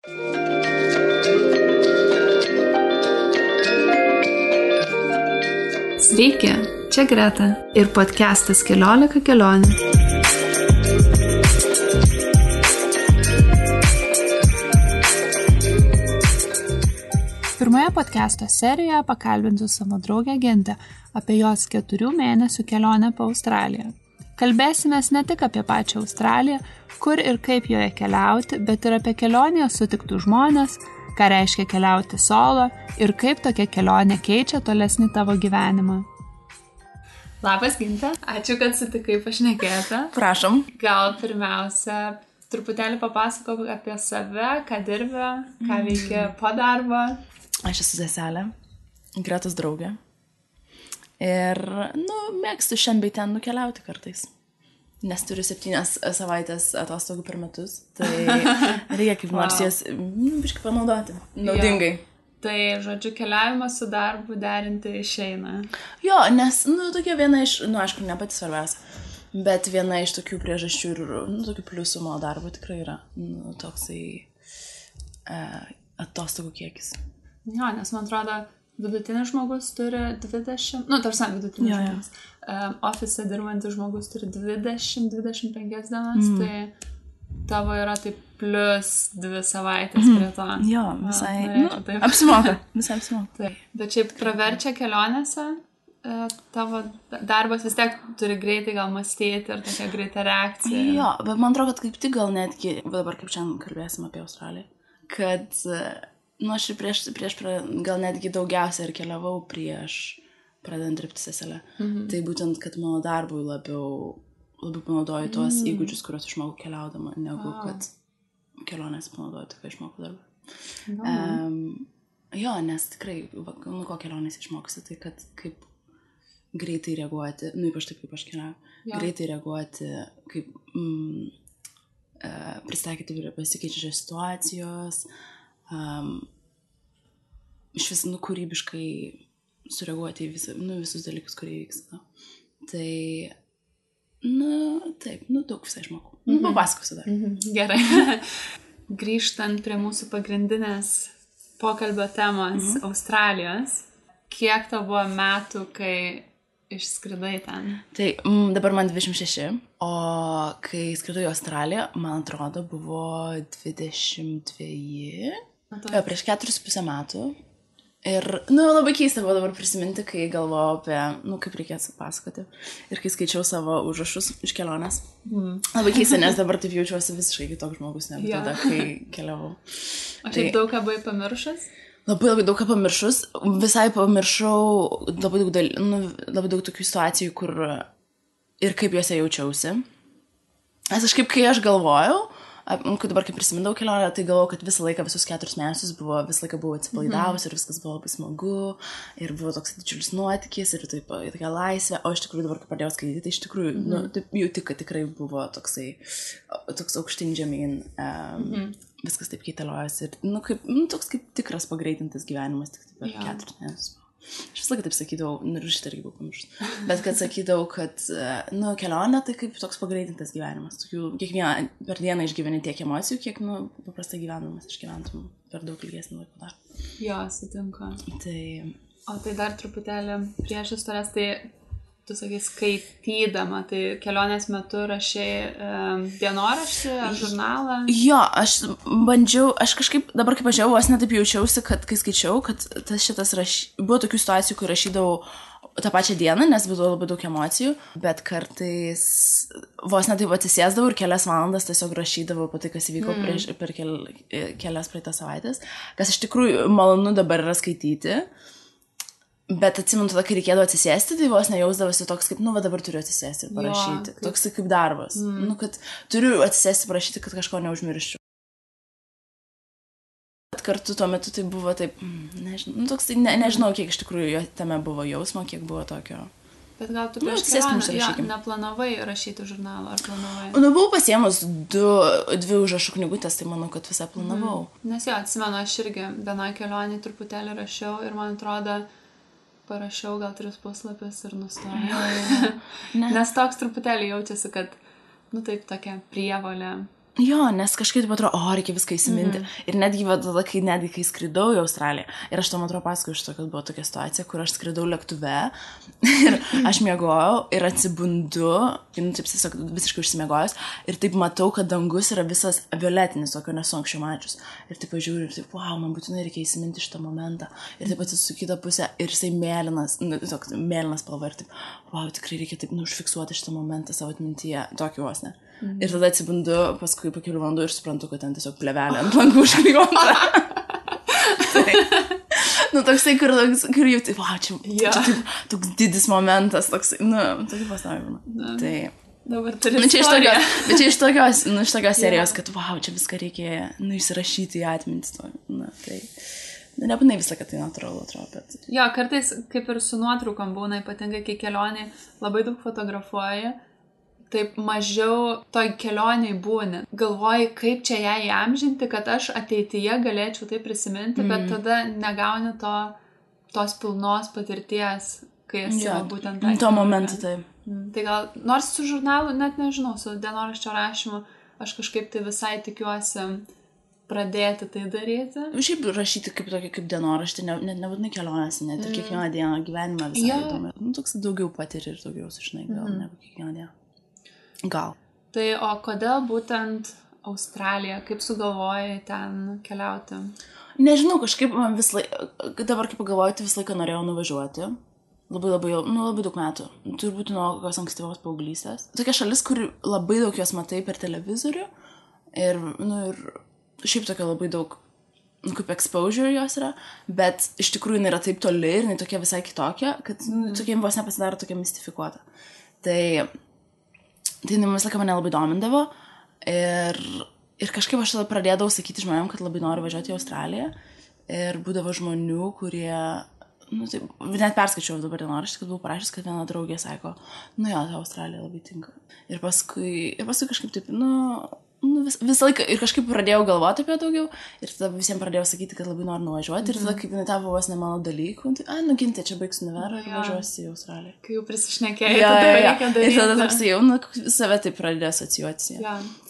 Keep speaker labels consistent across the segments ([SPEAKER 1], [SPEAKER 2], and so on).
[SPEAKER 1] Sveiki, čia Greta ir podcastas 14 kelionių. Pirmoje podcasto serijoje pakalbinsiu savo draugę Gintę apie jos 4 mėnesių kelionę po Australiją. Kalbėsimės ne tik apie pačią Australiją, kur ir kaip joje keliauti, bet ir apie kelionėje sutiktų žmonės, ką reiškia keliauti solo ir kaip tokia kelionė keičia tolesnį tavo gyvenimą. Labas, Ginte. Ačiū, kad sutikai pašnekėti.
[SPEAKER 2] Prašom.
[SPEAKER 1] Gal pirmiausia, truputėlį papasakok apie save, ką dirbi, ką veikia po darbo.
[SPEAKER 2] Aš esu seselė, Gretos draugė. Ir, mėgstu šiandien bei ten nukeliauti kartais. Nes turiu 7 savaitės atostogų per metus. Tai reikia kaip nors jas biškai panaudoti. Naudingai.
[SPEAKER 1] Tai, žodžiu, keliavimas su darbu derinti išeina.
[SPEAKER 2] Jo, nes, tokia viena iš, aišku, ne pati svarbiausia, bet viena iš tokių priežasčių ir, tokių pliusų mano darbo tikrai yra, toksai atostogų kiekis.
[SPEAKER 1] Jo, nes man atrodo, vidutinis žmogus turi 20, tarsi vidutinis žmogus. Ofise dirbantis žmogus turi 20-25 dienas, tai tavo yra taip plus 2 savaitės prie to.
[SPEAKER 2] Jo, visai, apsimoka, visai apsimoka.
[SPEAKER 1] Taip. Bet šiaip praverčia kelionėse, tavo darbas vis tiek turi greitai gal mąstyti ir tokia greita reakcija.
[SPEAKER 2] Jo, bet man atrodo, kad kaip tik gal netgi, dabar kaip šiandien kalbėsim apie Australiją, kad aš ir prieš gal netgi daugiausia ir keliavau prieš pradedant dirbti seselę. Tai būtent, kad mano darbui labiau panaudoju tuos įgūdžius, kuriuos išmokau keliaudama, negu kad kelionės panaudoju, tai ką išmokau darbą. Jo, nes tikrai, ko kelionės išmokusi, tai kad kaip greitai reaguoti, ypač taip, kaip aš keliauju, greitai reaguoti, kaip pristaikyti prie pasikeičiančios situacijos, iš vis, kūrybiškai sureaguoti į visus dalykus, kurie vyksta. Tai, taip, daug visai išmokau. Papasakosiu dar.
[SPEAKER 1] Gerai. Grįžtant prie mūsų pagrindinės pokalbio temos Australijos, kiek tau buvo metų, kai išskridai ten? Tai
[SPEAKER 2] dabar man 26, o kai skridau į Australiją, man atrodo, buvo 22, prieš 4,5 metų. Ir, labai keista buvo dabar prisiminti, kai galvojau apie, kaip reikėtų pasakoti. Ir kai skaičiau savo užrašus iš kelionės. Labai keista, nes dabar taip jaučiuosi visiškai kitoks žmogus negu tada, kai keliavau.
[SPEAKER 1] O šiaip daug ką buvai pamiršus?
[SPEAKER 2] Labai daug ką pamiršus. Visai pamiršau labai daug tokių situacijų, kur ir kaip juose jaučiausi. Nes aš kai aš galvojau, kai dabar prisimindavau kelionę, tai galvojau, kad visą laiką, visus 4 mėnesius visą laiką buvau atsipalaidavus ir viskas buvo labai smagu ir buvo toks didžiulis nuotykis ir tokia laisvė, o iš tikrųjų dabar, kai pradėjau skaityti, tai iš tikrųjų, jauti, kad tikrai buvo toks aukštyn žemyn, viskas taip keitaliojas ir, toks kaip tikras pagreitintas gyvenimas, tik per 4 mėnesius. Aš visą laiką taip sakydavau, ir šitą irgi buvau pamiršus, bet kad sakydavau, kad kelionė tai kaip toks pagreitintas gyvenimas. Kiekvieną per dieną išgyveni tiek emocijų, kiek paprastai gyvenimas išgyventum per daug ilgesnį laiko dar.
[SPEAKER 1] Jo, sutinku. O tai dar truputėlį prieš istorijas, tai tu sakai skaitydama, tai kelionės metu rašai dienoraštį ar žurnalą?
[SPEAKER 2] Jo, aš bandžiau, aš kažkaip, dabar kaip važiavau, aš netaip jaučiausi, kad kai skaičiau, kad buvo tokių situacijų, kur rašydavau tą pačią dieną, nes buvo labai daug emocijų, bet kartais vos netaip atsisėsdavau ir kelias valandas tiesiog rašydavau apie tai, kas įvyko per kelias praeitas savaitės, kas iš tikrųjų malonu dabar yra skaityti. Bet atsimenu tada, kai reikėdavo atsisėsti, tai vos nejausdavosi toks kaip, dabar turiu atsisėsti ir parašyti. Toks kaip darbas. Kad turiu atsisėsti parašyti, kad kažko neužmirščiau. Bet kartu tuo metu tai buvo taip, nežinau, kiek iš tikrųjų tame buvo jausmo, kiek buvo tokio.
[SPEAKER 1] Bet gal tu prieš kelionę neplanavai rašyti žurnalą, ar planavai?
[SPEAKER 2] Buvau pasiemus 2 užrašų knygutės, tai manau, kad visą planavau.
[SPEAKER 1] Nes atsimenu, aš irgi vienoj kelionėj truputėlį rašiau ir man atrodo, parašiau gal 3 puslapius ir nustojau. Nes toks truputėlį jaučiasi, kad, taip tokia prievolė
[SPEAKER 2] Jo, nes kažkaip atrodo, reikia viską įsiminti. Ir netgi tada, kai skridau į Australiją, ir aš tam atrodo pasakoju iš to, kad buvo tokia situacija, kur aš skridau lėktuve ir aš miegojau ir atsibundu, taip tiesiog visiškai užsimiegojus, ir taip matau, kad dangus yra visas violetinis, tokio nesu anksčiau mačius. Ir taip pažiūriu ir taip, man būtinai reikia įsiminti šitą momentą. Ir taip atsisuku kitą pusę ir jisai mėlynas, mėlynas spalva ir taip, tikrai reikia taip užfiksuoti šitą momentą savo atmintyje, tokį vos ne. Ir tada atsibundu paskui po kelių valandų ir suprantu, kad ten tiesiog plevelė ant langų užklijuota. Toksai, kur jau taip, čia taip, toks didis momentas, toksai, tokį pasavimą. Tai...
[SPEAKER 1] Dabar turi istoriją.
[SPEAKER 2] Bet čia iš tokios serijos, kad, čia viską reikia, įsirašyti į atmintį. Tai... Nebūnai visą, kad tai natūralu atrodo, bet...
[SPEAKER 1] Jo, kartais, kaip ir su nuotraukom būna, ypatingai, kai kelionė labai daug fotografuoja, taip mažiau toj kelioniai būni. Galvoji, kaip čia ją įamžinti, kad aš ateityje galėčiau tai prisiminti, bet tada negauni tos pilnos patirties, kai esi būtent tą.
[SPEAKER 2] Tuo momentu, tai.
[SPEAKER 1] Tai gal, nors su žurnalu, net nežinau, su dienoraščio rašymu, aš kažkaip tai visai tikiuosi pradėti tai daryti.
[SPEAKER 2] Šiaip rašyti kaip dienoraštį, nebūtinai kelionės, net ir kiekvieną dieną gyvenimą visai įdomu. Toks daugiau patiri ir daugiau sužinai gal negu kiekvieną dieną. Gal.
[SPEAKER 1] Tai o kodėl būtent Australija? Kaip sugalvojai ten keliauti?
[SPEAKER 2] Nežinau, kažkaip man dabar kaip pagalvoju, tai visą laiką norėjau nuvažiuoti. Labai daug metų. Turbūt nuo kokios ankstyvos paauglystės. Tokia šalis, kur labai daug jos matai per televizorių. Ir šiaip tokia labai daug, kaip exposure jos yra. Bet iš tikrųjų jinai yra taip toli ir jinai tokia visai kitokia, kad tokia vos nepasidaro tokia mistifikuota. Tai vis laiką mane labai domindavo ir kažkaip aš tada pradėdavau sakyti žmonėm, kad labai noriu važiuoti į Australiją ir būdavo žmonių, kurie, net perskaičiau dabar dienoraštį, kad buvau parašęs, kad viena draugė sako, ta Australija labai tinka. Ir paskui kažkaip taip, visą laiką ir kažkaip pradėjau galvoti apie daugiau ir tada visiems pradėjau sakyti, kad labai noriu nuvažiuoti ir tada kaip jinai tapo vos ne mano dalykų, gintė, čia baigsiu nuverą ir važiuosiu į Australiją.
[SPEAKER 1] Kai jau prisišnekėjai, tada reikia daryti.
[SPEAKER 2] Ir tada toksai jau, save taip pradėjo asocijuoti.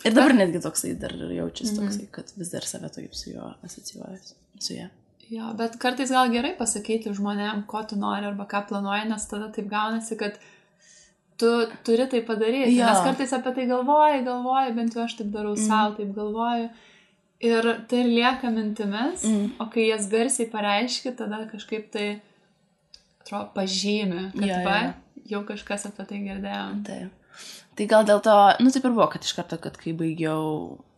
[SPEAKER 2] Ir dabar netgi toksai dar jaučiasi toksai, kad vis dar save taip su juo asocijuojas, su ją.
[SPEAKER 1] Jo, bet kartais gal gerai pasakyti žmonėm, ko tu nori arba ką planuoji, nes tada taip gaunasi, kad tu turi tai padaryti, nes kartais apie tai galvoji, bent jau aš taip darau savo, taip galvoju. Ir tai ir lieka mintimis, o kai jas garsiai pareiški, tada kažkaip tai, atrodo, pažymi, kad jau kažkas apie tai girdėjom.
[SPEAKER 2] Tai gal dėl to, taip ir buvo, kad iš karto, kad kai baigiau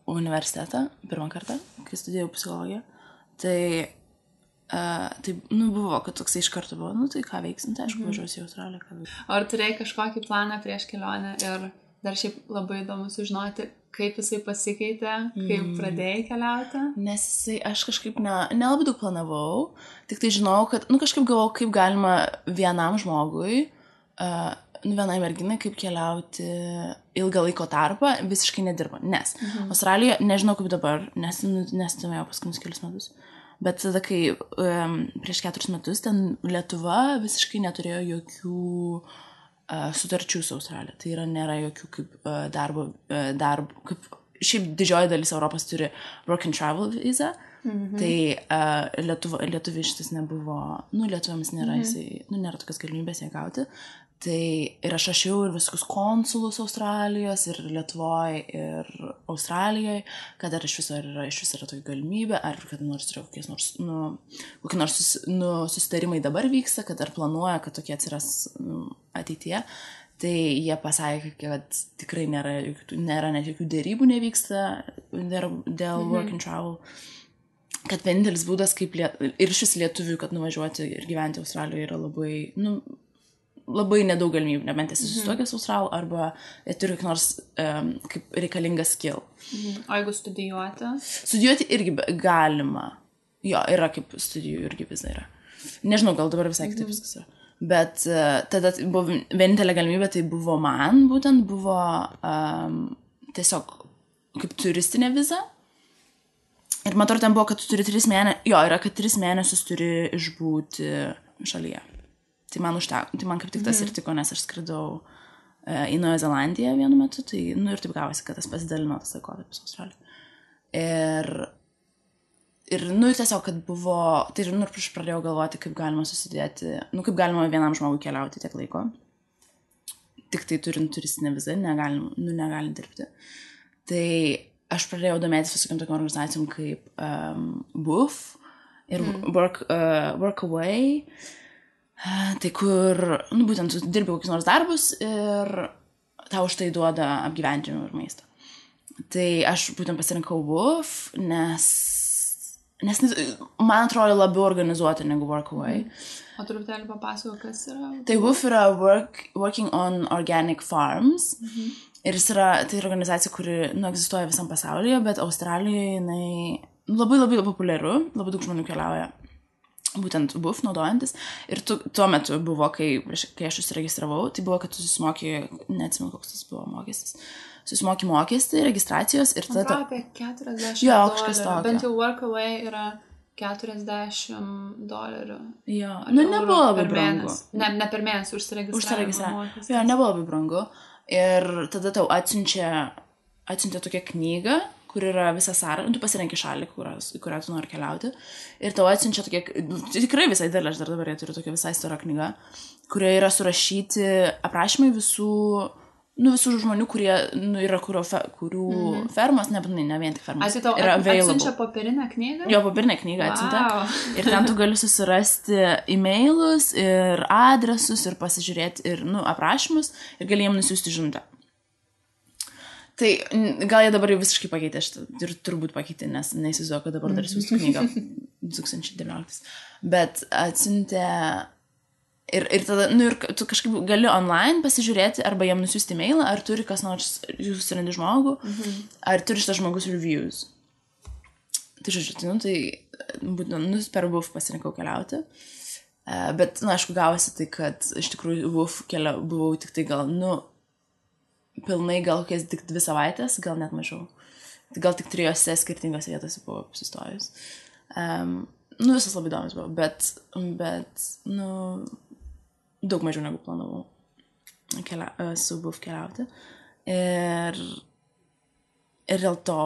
[SPEAKER 2] universitetą, pirmą kartą, kai studijavau psichologiją, tai buvo, kad toksai iš karto buvo, tai ką veiksim, tai aišku, važiuosiu į Australiją.
[SPEAKER 1] Ar turėjai kažkokį planą prieš kelionę ir dar šiaip labai įdomu sužinoti, kaip jisai pasikeitė, kaip pradėjai keliauti?
[SPEAKER 2] Nes aš kažkaip nelabai daug planavau, tik tai žinau, kad, kažkaip galvojau, kaip galima vienam žmogui, vienai merginai, kaip keliauti ilgą laiko tarpą, visiškai nedirba. Nes Australija, nežinau kaip dabar, nes nestumėjau paskutinius kelius metus. Bet tada, kai prieš 4 metus ten Lietuva visiškai neturėjo jokių sutarčių su Australija. Tai yra, nėra jokių kaip darbo, kaip šiaip didžioji dalis Europos turi work and travel visa. Tai Lietuviai šitas nebuvo, lietuviams nėra, nėra tokios galimybės ją gauti. Tai ir aš rašiau ir visus konsulus Australijos ir Lietuvoje ir Australijoje, kad ar iš viso yra tokia galimybė, ar kad kokie nors susitarimai dabar vyksta, kad ar planuoja, kad tokie atsiras ateityje. Tai jie pasakė, kad tikrai nėra net jokių dėrybų nevyksta dėl work and travel. Kad vienintelis būdas, kaip ir šis lietuvių, kad nuvažiuoti ir gyventi Australijoje yra labai nedaug galimybių, nebent esi susituokęs Australų, arba turi kokį nors kaip reikalingas skill.
[SPEAKER 1] O jeigu studijuoti?
[SPEAKER 2] Studijuoti irgi galima. Jo, yra kaip studijų irgi vis yra. Nežinau, gal dabar visai kitaip viskas yra. Bet tada buvo vienintelė galimybė, tai buvo man, būtent buvo tiesiog kaip turistinė viza. Ir man atrodo, ten buvo, kad tu turi 3 mėnesius, yra, kad 3 mėnesius turi išbūti šalyje. Tai man užteko, tai man kaip tik tas ir tiko, nes aš skridau į Naują Zelandiją vienu metu, tai, nu, ir taip gavosi, kad tas pasidalino tas laikotarpis Australijoje. Ir, nu, tiesiog, kad buvo, tai, nu, ir aš pradėjau galvoti, kaip galima susidėti, nu, kaip galima vienam žmogui keliauti tiek laiko. Tik tai turint turistinę vizą, negalim dirbti. Tai aš pradėjau domėtis visokiam tokiam organizacijom kaip WOOF ir Workaway. Tai kur, nu, būtent tu dirbi kokius nors darbus ir tau už tai duoda apgyvendinimą ir maistą. Tai aš būtent pasirinkau WOOF, nes man atrodo labiau organizuoti negu Workaway.
[SPEAKER 1] O truputėlį papasako, kas yra?
[SPEAKER 2] Tai WOOF yra Working on Organic Farms. Ir tai organizacija, kuri, nu, egzistuoja visam pasaulyje, bet Australijoje jinai labai populiaru, labai daug žmonių keliauja būtent WOOF naudojantis. Ir tuo metu buvo, kai aš užsiregistravau, tai buvo, kad tu susimoki, neatsimenu, koks tas buvo mokestis. Susimoki mokestį, registracijos ir tada...
[SPEAKER 1] Man apie $40.
[SPEAKER 2] Jo, kažkas tokio.
[SPEAKER 1] Bent jau Workaway yra $40.
[SPEAKER 2] Jo, nu nebuvo labai brangu.
[SPEAKER 1] Ne per mėnesį užsiregistravimo.
[SPEAKER 2] Jo, nebuvo labai brangu. Ir tada tau atsiuntė tokią knygą, kur yra visa sąraša, tu pasirenki šalį, į kurią tu nori keliauti. Ir tau atsiunčia tokia, tikrai visai didelė, aš dar dabar turiu tokia visai stora knyga, kurioje yra surašyti aprašymai visų žmonių, kurie yra kurių fermos, ne vien tik fermos.
[SPEAKER 1] Tai tau atsiunčia popierinę knygą?
[SPEAKER 2] Jo, popierinę knygą atsiuntė. Ir ten tu gali susirasti e-mailus ir adresus ir pasižiūrėti ir, nu, aprašymus ir gali jiem nusiųsti žinutę. Tai gal jie dabar jau visiškai pakeitė šitą ir turbūt pakeitė, nes neįsivaizduoju, kad dabar dar siųstų knygą 2019. Bet atsiuntė... Ir tada, nu, ir tu kažkaip gali online pasižiūrėti, arba jam nusiųsti mailą, ar turi kas nors, jūs susirandi žmogų, ar turi šitas žmogus reviews. Tai žodžiu, nu, tai būtent, per WOOF pasirinkau keliauti. Bet, nu, aišku, gavosi tai, kad iš tikrųjų WOOF buvau tik tai gal, nu, pilnai gal kokias tik 2 savaitės, gal net mažiau. Gal tik 3 skirtingose vietose buvau apsistojus. Nu, visas labai įdomus buvo, bet, nu... daug mažiau negu planavau su WOOF keliauti. Ir dėl to,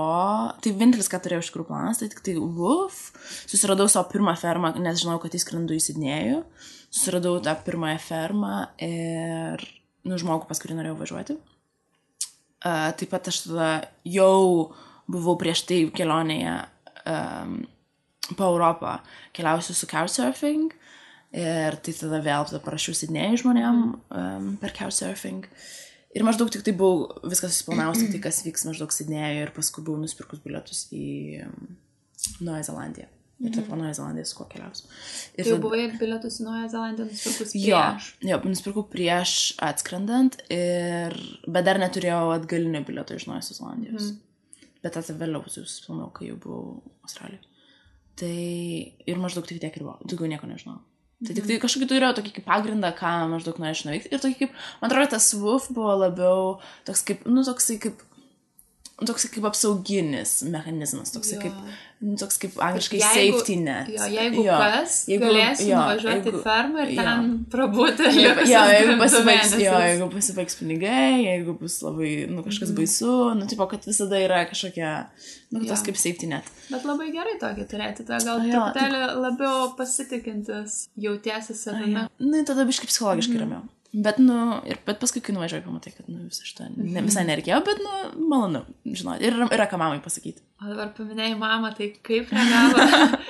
[SPEAKER 2] tai vienintelis, ką turėjau iš tikrųjų planas, tai tik tai WOOF. Susiradau savo pirmą fermą, nes žinau, kad įskrendu į Sidnėjų. Susiradau tą pirmąją fermą ir, nu, žmogų, pas kurį norėjau važiuoti. Taip pat aš tada jau buvau prieš tai kelionėje po Europą, keliausiu su couchsurfing. Ir tai tada vėl parašiau Sidnėjui žmonėm per couchsurfing. Ir maždaug tik tai buvau viskas susiplanavus, tai kas vyks maždaug Sidnėjui ir paskui buvau nusipirkus bilietus į Naują Zelandiją. Ir taip po Naują Zelandiją su kuo keliausiu.
[SPEAKER 1] Jau buvai bilietus į Naują Zelandiją nusipirkus prieš?
[SPEAKER 2] Jo, nusipirkau prieš atskrendant, bet dar neturėjau atgalinio bilieto iš Naujosios Zelandijos. Bet tada vėliau susiplanavau, kai jau buvau Australijoje. Tai ir maždaug tik tiek ir buvo, daugiau nieko nežinau. Tai tik tai kažkokį turėjau tokį kaip pagrindą, ką maždaug norėčiau nuveikti. Ir tokį kaip, man atrodo, tas WOOF buvo labiau toks kaip, nu, toksai kaip apsauginis mechanizmas, toksai kaip angliškai safety net.
[SPEAKER 1] Jo, jeigu galėsi nuvažiuoti į fermą ir ten prabūti.
[SPEAKER 2] Jeigu pasibaigs pinigai, jeigu bus labai, nu, kažkas baisu, nu, tipo, kad visada yra kažkokia, nu, tas kaip safety net.
[SPEAKER 1] Bet labai gerai tokį turėti, gal truputėlį labiau pasitikintis jautiesi savimi.
[SPEAKER 2] Nu, tada biškai psichologiškai ramiau. Bet paskui, kai nuvažiuoju, pamatai, kad, nu, visą šitą visai nereikėjo, bet, nu, malonu, žinoti. Ir yra ką mamai pasakyti.
[SPEAKER 1] O dabar paminėjai mamą, tai kaip reagavo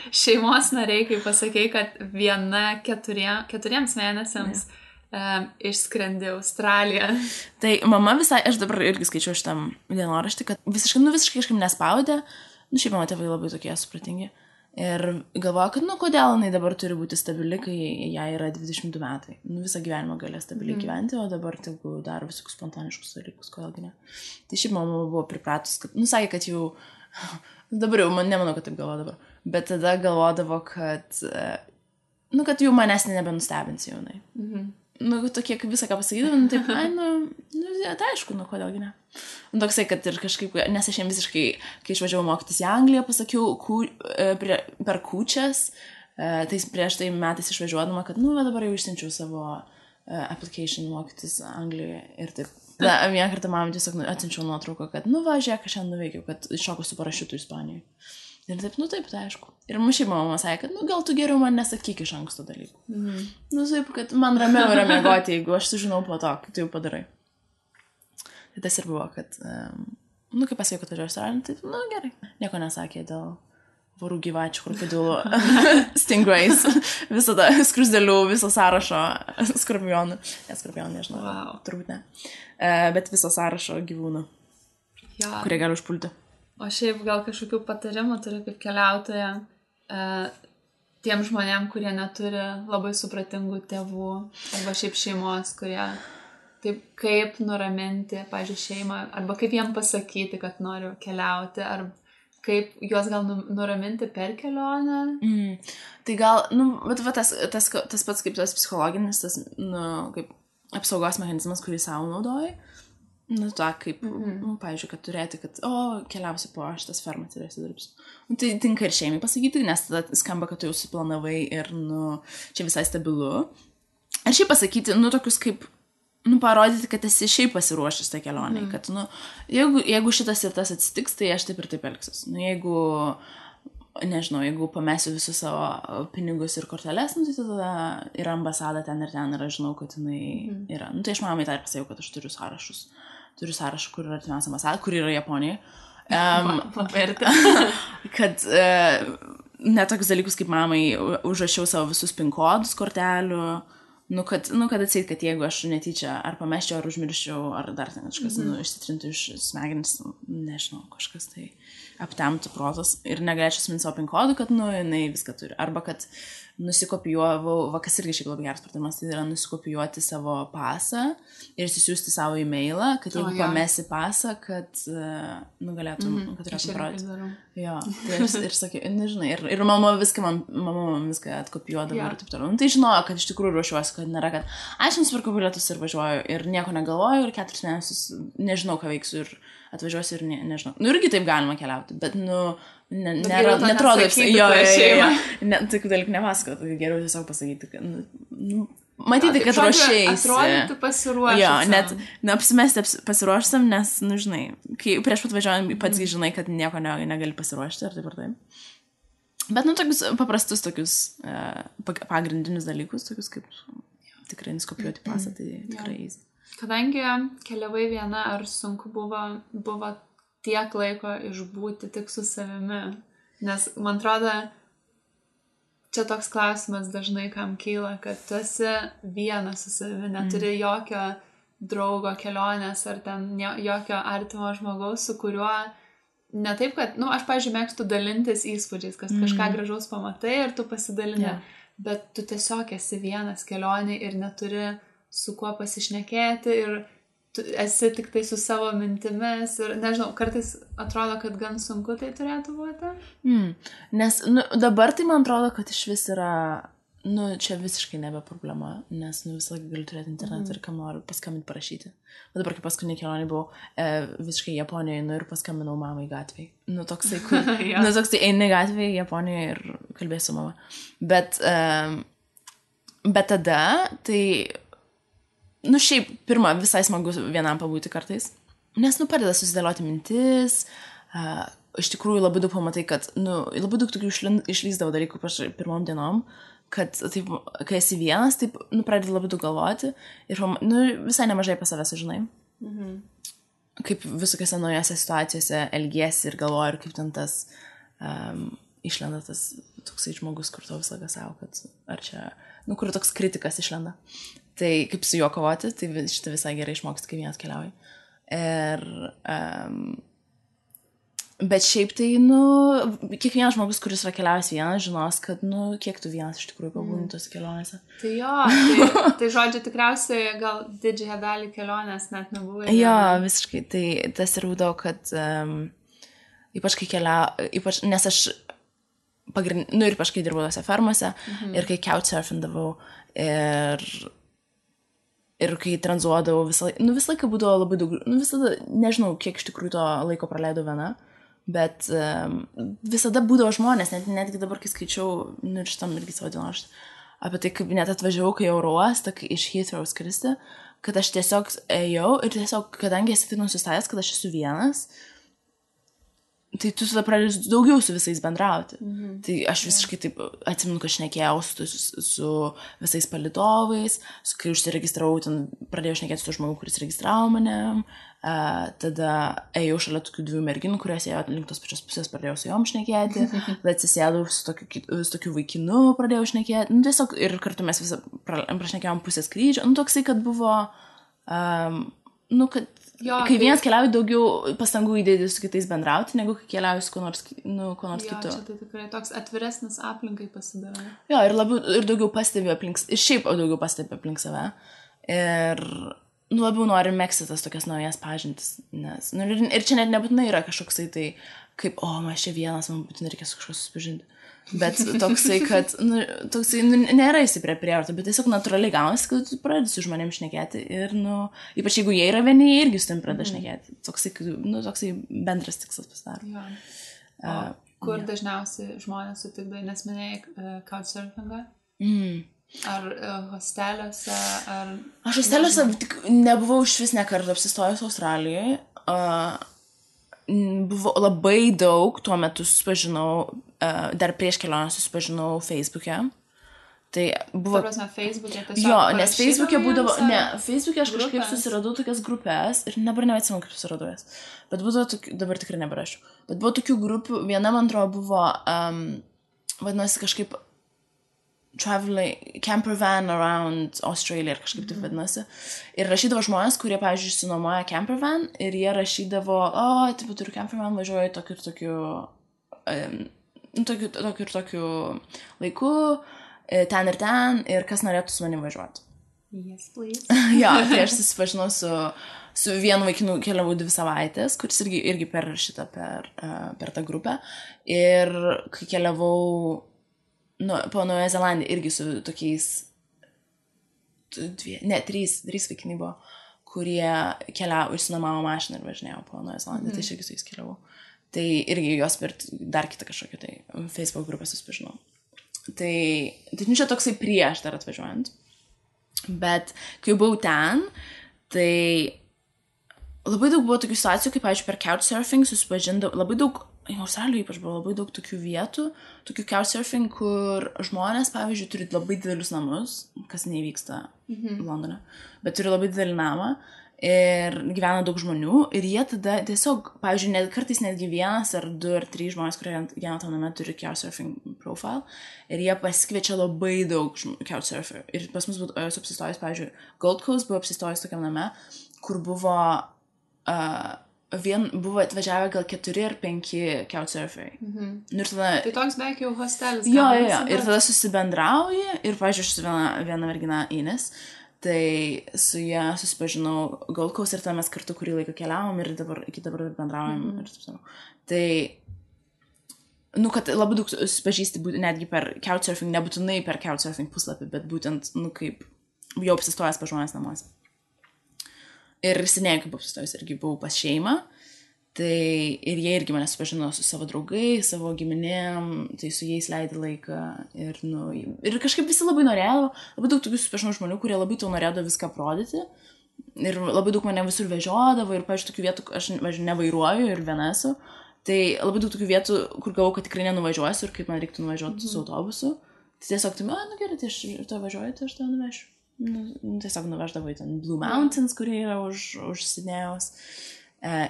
[SPEAKER 1] šeimos nariai, kai pasakei, kad viena 4 mėnesiams išskrendi Australiją.
[SPEAKER 2] Tai mama visai, aš dabar irgi skaičiau šitam dienoraštį, kad visiškai kažkaip nespaudė. Nu, šiaip mano tėvai labai tokie supratingi. Ir galvoju, kad, nu, kodėl jinai dabar turi būti stabili, kai jai yra 22 metai. Nu, visą gyvenimą galės stabiliai gyventi, o dabar tegu daro visokius spontaniškus dalykus, kodėlgi ne. Tai šiaip mama buvo pripratus, kad, nu, sakė, kad jau, dabar jau, nemanau, kad taip galvoja dabar, bet tada galvodavo, kad, nu, kad jau manęs nebenustebins jaunai. Nu, tokie, kaip visą ką pasakydavo, nu, taip, tai aišku, nu, kodėlgi ne. Nu, toksai, kad ir kažkaip, nes aš jam visiškai, kai išvažiavau mokytis į Angliją, pasakiau per kūčias, tai prieš tai metais išvažiuodama, kad, nu, dabar jau išsiunčiau savo application mokytis Anglijoje ir taip. Tada vieną kartą mamai tiesiog atsiunčiau nuotrauką, kad, va, žiūrėk, aš šiandien nuveikiau, kad šoku su parašiutu Ispanijoje. Ir taip, taip, tai aišku. Ir šiaip mama sakė, kad, gal tu geriau man nesakyk iš anksto dalykų. Taip, kad man ramiau yra miegoti, jeigu aš sužinau po to, kai tu jau padarai. Tai tas ir buvo, kad, kai pasakė, kad važiuoju Australiją, tai, gerai. Nieko nesakė dėl vorų gyvačių, krokodilų, stingrays, visada skrusdėlių, viso sąrašo skorpionų. Skorpionų, nežinau, turbūt ne. Bet viso sąrašo gyvūnų, kurie gali užpulti.
[SPEAKER 1] O šiaip gal kažkokių patarimų turi kaip keliautoja tiem žmonėm, kurie neturi labai supratingų tėvų arba šiaip šeimos, kurie taip kaip nuraminti, pavyzdžiui, šeimą, arba kaip jiem pasakyti, kad noriu keliauti, ar kaip juos gal nuraminti per kelionę.
[SPEAKER 2] Tai gal, bet tas pats kaip tas psichologinis, tas, kaip apsaugos mechanizmas, kurį savo naudoji. Kaip, pavyzdžiui, kad turėti, kad, keliausiu po šitas fermas ir dirbsiu. Tai tinka ir šeimai pasakyti, nes tada skamba, kad tu jau suplanavai ir, čia visai stabilu. Ir šiaip pasakyti, tokius kaip, parodyti, kad esi šiaip pasiruošęs tą kelionę, kad, jeigu šitas ir tas atsitiks, tai aš taip ir taip elgsiuos. Jeigu, nežinau, jeigu pamesiu visus savo pinigus ir korteles, tai tada yra ambasada ten ir aš žinau, kad jinai yra. Tai aš mamai tą ir pasakiau, kad aš turiu sąrašus. Turiu sąrašą, kur yra artimiausia ambasada, kur yra Japonija. Kad ne tokius dalykus kaip mamai užrašiau savo visus PIN kodus kortelių, kad atseit, kad jeigu aš netyčia ar pameščiau, ar užmirščiau, ar dar ten kažkas išsitrintų iš smegenis, nežinau, kažkas tai aptemtų protas ir negalėčiau atminti savo PIN kodų, kad, jinai viską turi. Arba kad nusikopijuovau, kas irgi šiaip labai geras pratimas, tai yra nusikopijuoti savo pasą ir įsisiųsti savo e-mailą, kad jeigu pamesi pasą, kad galėtum, kad turėtum parodyti. Jo, tai ir sakiau, nežinai, ir mama viską atkopijuodavo ir taip toliau. Tai žinojo, kad iš tikrųjų ruošiuosi, kad nėra, kad aš nusipirkau bilietus ir važiuoju ir nieko negalvoju ir 4 mėnesius nežinau, ką veiksiu ir atvažiuosiu ir nežinau. Irgi taip galima keliauti, bet, netrodo, tokių dalykų nepasakot, tai geriau tiesiog pasakyti, kad, matyti, kad ruošėjasi.
[SPEAKER 1] Atrodyti pasiruošęs.
[SPEAKER 2] Jo, net apsimesti pasiruošęs, nes, žinai, kai prieš pat važiuojant, pats žinai, kad nieko negali pasiruošti, ar taip ar taip. Bet, tokius paprastus, tokius pagrindinius dalykus, tokius kaip tikrai nuskopijuoti pasą, tai tikrai easy.
[SPEAKER 1] Kadangi keliavai viena, ar sunku buvo tiek laiko išbūti tik su savimi? Nes, man atrodo, čia toks klausimas dažnai kam kyla, kad tu esi vienas su savimi, neturi jokio draugo kelionės ar ten jokio artimo žmogaus, su kuriuo ne taip, kad, aš, pavyzdžiui, mėgstu dalintis įspūdžiais, kad kažką gražaus pamatai ir tu pasidalini, bet tu tiesiog esi vienas kelionė ir neturi su kuo pasišnekėti ir tu esi tik tai su savo mintimis ir, nežinau, kartais atrodo, kad gan sunku tai turėtų būti.
[SPEAKER 2] Nes dabar tai man atrodo, kad iš vis yra, čia visiškai nebe problema, nes visą laiką galiu turėti internetą ir kam noriu paskambinti parašyti. O dabar, kai paskutinį kelionį buvau visiškai Japonijoje, ir paskambinau mamai gatvėje. Toksai, kur, toksai eini gatvėje Japonijoje ir kalbėsiu mama. Bet tada, tai šiaip, pirma, visai smagu vienam pabūti kartais, nes, padeda susidėlioti mintis, iš tikrųjų labai daug pamatai, kad, labai daug tokių išlysdavo dalykų pirmom dienom, kad, taip, kai esi vienas, taip, pradedi labai daug galvoti ir, visai nemažai apie save sužinai. Kaip visokiose naujose situacijose elgiesi ir galvoji, ir kaip ten tas išlenda tas toksai žmogus, kur to visą savo, kad ar čia, kur toks kritikas išlenda. Tai kaip su juo kovoti, tai šitą visai gerai išmoksti, kai vienas keliauji. Bet šiaip tai, kiekvienas žmogus, kuris yra keliavęs vienas, žinos, kad, kiek tu vienas iš tikrųjų pabūni tose kelionėse.
[SPEAKER 1] Tai jo, tai žodžiu, tikriausiai gal didžiąją dalį kelionės net nebuvai.
[SPEAKER 2] Jo, visiškai. Tai tas ir būdavo, kad ypač kai ypač, nes aš ypač kai dirbau tose fermose ir kai couchsurfindavau ir kai tranzuodavau visą laiką būdavo labai daug, visada, nežinau, kiek iš tikrųjų to laiko praleidau viena, bet visada būdavo žmonės, netgi dabar, kai skaičiau, šitam irgi savo dienoraštį, apie tai, kaip net atvažiavau, kai oro uostą, iš Heathrow skristi, kad aš tiesiog ėjau ir tiesiog, kadangi esi taip nusistatęs, kad aš esu vienas, tai tu tada pradedi daugiau su visais bendrauti. Tai aš visiškai taip atsimenu, kad šnekėjau su visais palydovais, kai užsiregistravau, ten pradėjau šnekėti su žmogu, kuris registravo mane, tada ėjau šalia tokių 2 merginų, kurios ėjo link tos pačios pusės, pradėjau su jom šnekėti, tada atsisėdau su tokiu vaikinu, pradėjau šnekėti, nu tiesiog ir kartu mes visą prašnekėjom pusę skrydžio, nu toksai, kad buvo, nu kad kai vienas keliauji, daugiau pastangų įdėti su kitais bendrauti, negu kai keliauji su kuo nors kitu.
[SPEAKER 1] Čia tai tikrai toks atviresnis aplinkai pasidaro.
[SPEAKER 2] Jo, ir daugiau pastebi aplink, ir šiaip daugiau pastebi aplink save. Ir labiau nori megzti tas tokias naujas pažintis. Nes, ir čia net nebūtinai yra kažkoksai tai, kaip, man čia vienas, man būtinai reikia su kažkas susipažinti. Bet toksai, kad, nėra įsiprė prievarta, bet tiesiog natūraliai gaunasi, kad tu pradedi su žmonėm šnekėti ir, ypač jeigu jie yra vieni, jie irgi su tam pradeda šnekėti. Toksai bendras tikslas pasidaro.
[SPEAKER 1] Kur dažniausiai žmonės sutikdai, nes minėjai couchsurfingą? Ar hosteliuose, ar...
[SPEAKER 2] Aš hosteliuose nebuvau iš vis nekartą apsistojus Australijoje. Buvo labai daug, tuo metu susipažinau, dar prieš kelionę susipažinau Facebook'e. Tai buvo...
[SPEAKER 1] Tarpasme, Facebook'e tiesiog...
[SPEAKER 2] Jo, nes Facebook'e būdavo... Ne, Facebook'e aš kažkaip susiradau tokias grupės ir dabar neatsimenu, kaip susiradau jas. Bet būdavo tokių... Dabar tikrai neberašiu. Bet buvo tokių grupių, viena, man atrodo, buvo... vadinasi kažkaip... camper van around Australia ir kažkaip taip vadinasi. Ir rašydavo žmonės, kurie, pavyzdžiui, išsinuomoja camper van ir jie rašydavo, taip, turiu camper van, važiuoju tokiu laiku, ten ir ten, kas norėtų su manim važiuoti.
[SPEAKER 1] Yes, please.
[SPEAKER 2] Jo, tai aš susipažinau su vienu vaikinu, keliavau 2 savaitės, kuris irgi per tą grupę. Ir kai keliavau po Naująją Zelandiją irgi su tokiais 3 vaikinai buvo, kurie keliavo, išsinuomavo mašiną ir važinėjo po Naująją Zelandiją, tai aš irgi su jais keliavau. Tai irgi jos per dar kitą kažkokią tai Facebook grupę susipažinau. Tai čia toksai prieš dar atvažiuojant. Bet kai buvau ten, tai labai daug buvo tokių situacijų, kaip, pavyzdžiui, per couchsurfing susipažindavau, labai daug, Australijoje ypač buvo labai daug tokių vietų, tokių couchsurfing, kur žmonės, pavyzdžiui, turi labai didelius namus, kas nevyksta Londone, bet turi labai didelį namą ir gyvena daug žmonių ir jie tada tiesiog, pavyzdžiui, kartais netgi 1 ar 2 ar 3 žmonės, kurie gyvena tam name, turi couchsurfing profile ir jie pasikviečia labai daug couchsurfer. Ir pas mus buvo apsistojus, pavyzdžiui, Gold Coast buvo apsistojus tokiam name, kur buvo atvažiavę gal 4 ar 5 couchsurferiai. Ir tada...
[SPEAKER 1] Tai toks beveik jau hostelis.
[SPEAKER 2] Jo. Ir tada susibendrauji ir, pavyzdžiui, aš su viena mergina Ines, tai su ją susipažinau Gold Coast ir tada mes kartu kurį laiką keliavom ir iki dabar bendraujam ir taip savo. Tai, kad labai daug susipažįsti netgi per couchsurfing, nebūtinai per couchsurfing puslapį, bet būtent, kaip jau apsistojęs pas žmonės namuose. Ir seniai, kaip apsistojus, irgi buvau pas šeimą, tai ir jie irgi mane supažino su savo draugais, savo giminėm, tai su jais leidai laiką ir kažkaip visi labai norėjo, labai daug tokių supažinau žmonių, kurie labai tau norėjo viską aprodyti ir labai daug mane visur vežiodavo ir, pavyzdžiui, tokių vietų, aš nevairuoju ir viena esu, tai labai daug tokių vietų, kur galvau, kad tikrai nenuvažiuosiu ir kaip man reiktų nuvažiuoti su autobusu, tai tiesiog, gerai, tai aš to važiuoju, tai aš to nuvešiu. Tiesiog nuveždavo į ten Blue Mountains, kurie yra už Sidnėjaus,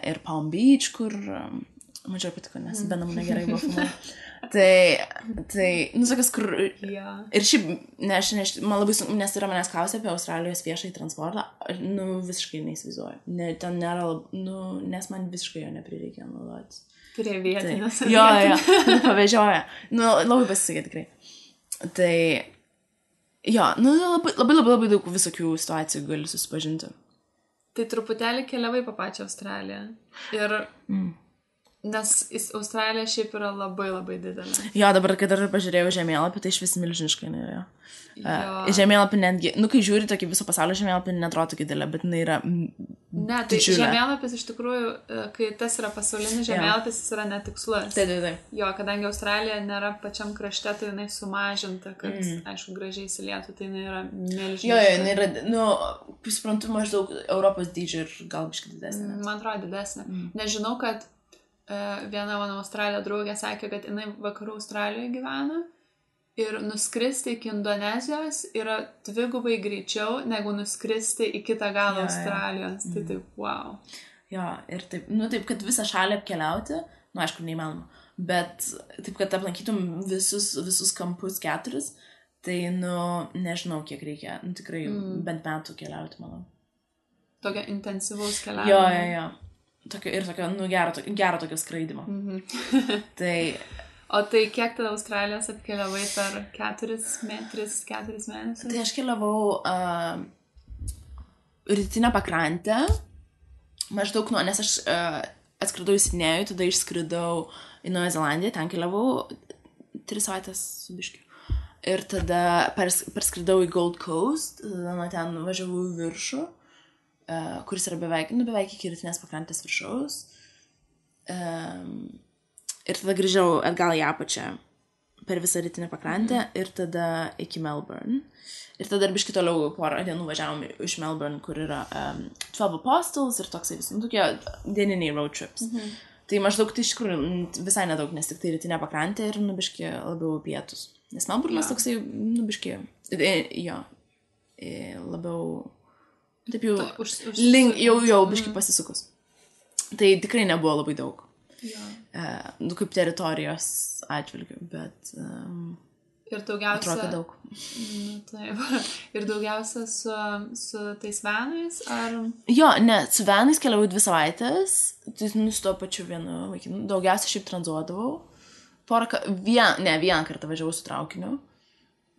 [SPEAKER 2] ir Palm Beach, kur mažiau patiko, nes be namų negerai buvo filmuoti. Tai, sakas, kur... Ir šiaip, man labai sunku, nes yra manęs klausė apie Australijos viešąjį transportą, visiškai neįsivaizduoju. Ten nėra, nes man visiškai jo neprireikia naudoti.
[SPEAKER 1] Prie vietinės.
[SPEAKER 2] Jo, pavežioja. Labai pasisekė tikrai. Tai... Jo, labai daug visokių situacijų gali susipažinti.
[SPEAKER 1] Tai truputėlį keliavai po pačią Australiją. Ir Nes Australija šiaip yra labai labai didelė.
[SPEAKER 2] Jo, dabar, kai dar pažiūrėjau žemėlapį, tai iš vis milžiniškai nėra.
[SPEAKER 1] Žemėlapį
[SPEAKER 2] netgi, kai žiūri tokį viso pasaulio žemėlapį, netrodo tokį didelė, bet jinai yra
[SPEAKER 1] ne, tai žemėlapis iš tikrųjų, kai tas yra pasaulinis žemėlapis, jis yra netikslus.
[SPEAKER 2] Taip.
[SPEAKER 1] Jo, kadangi Australija nėra pačiam krašte, tai jinai sumažinta, kad, aišku, gražiai įsilietų, tai jinai yra milžiniška.
[SPEAKER 2] Jo, jinai yra, suprantu, maždaug Europos dydžio ir gal biškai didesnė.
[SPEAKER 1] Man atrodo didesnė. Nežinau, kad viena mano Australija draugė sakė, kad jinai vakarų Australijoje gyvena. Ir nuskristi iki Indonezijos yra 2 greičiau, negu nuskristi į kitą galą Australijos. Tai taip, wow.
[SPEAKER 2] Jo, ir taip, taip, kad visą šalį apkeliauti, aišku, neįmanoma, bet taip, kad aplankytum visus kampus 4, tai, nežinau, kiek reikia, tikrai bent metų keliauti, manau.
[SPEAKER 1] Tokio intensyvaus keliavimo.
[SPEAKER 2] Jo. Tokio, gero tokio skraidimo. Tai...
[SPEAKER 1] O tai kiek tada Australijos apkeliavai per 4 mėnesius?
[SPEAKER 2] Tai aš keliavau rytinę pakrantę, maždaug nes aš atskridau į Sidnėjų, tada išskridau į Naują Zelandiją, ten keliavau 3 savaitės su biškiu. Ir tada perskridau į Gold Coast, tada nuo ten važiavau į viršų, kuris yra beveik iki rytinės pakrantės viršaus. Ir tada grįžau atgal į apačią per visą rytinę pakrantę ir tada iki Melbourne. Ir tada biškai toliau porą dienų važiavom iš Melbourne, kur yra 12 Apostles ir toksai visi, tokie dieniniai road trips. Tai maždaug tai iš tikrųjų visai nedaug, nes tik tai rytinė pakrantė ir biškai labiau pietus. Nes Melbourne'as toksai, biškai, labiau, taip jau biškai pasisukus. Tai tikrai nebuvo labai daug. Kaip teritorijos atžvilgių, bet
[SPEAKER 1] ir daugiausia
[SPEAKER 2] atrodo daug.
[SPEAKER 1] Taip. Ir daugiausia su tais vanais, ar...
[SPEAKER 2] Jo, ne, su vanais keliavau 2 savaitės, tai su to pačiu vienu vaikinu. Daugiausia šiaip tranzuodavau. Vieną kartą važiavau su traukiniu,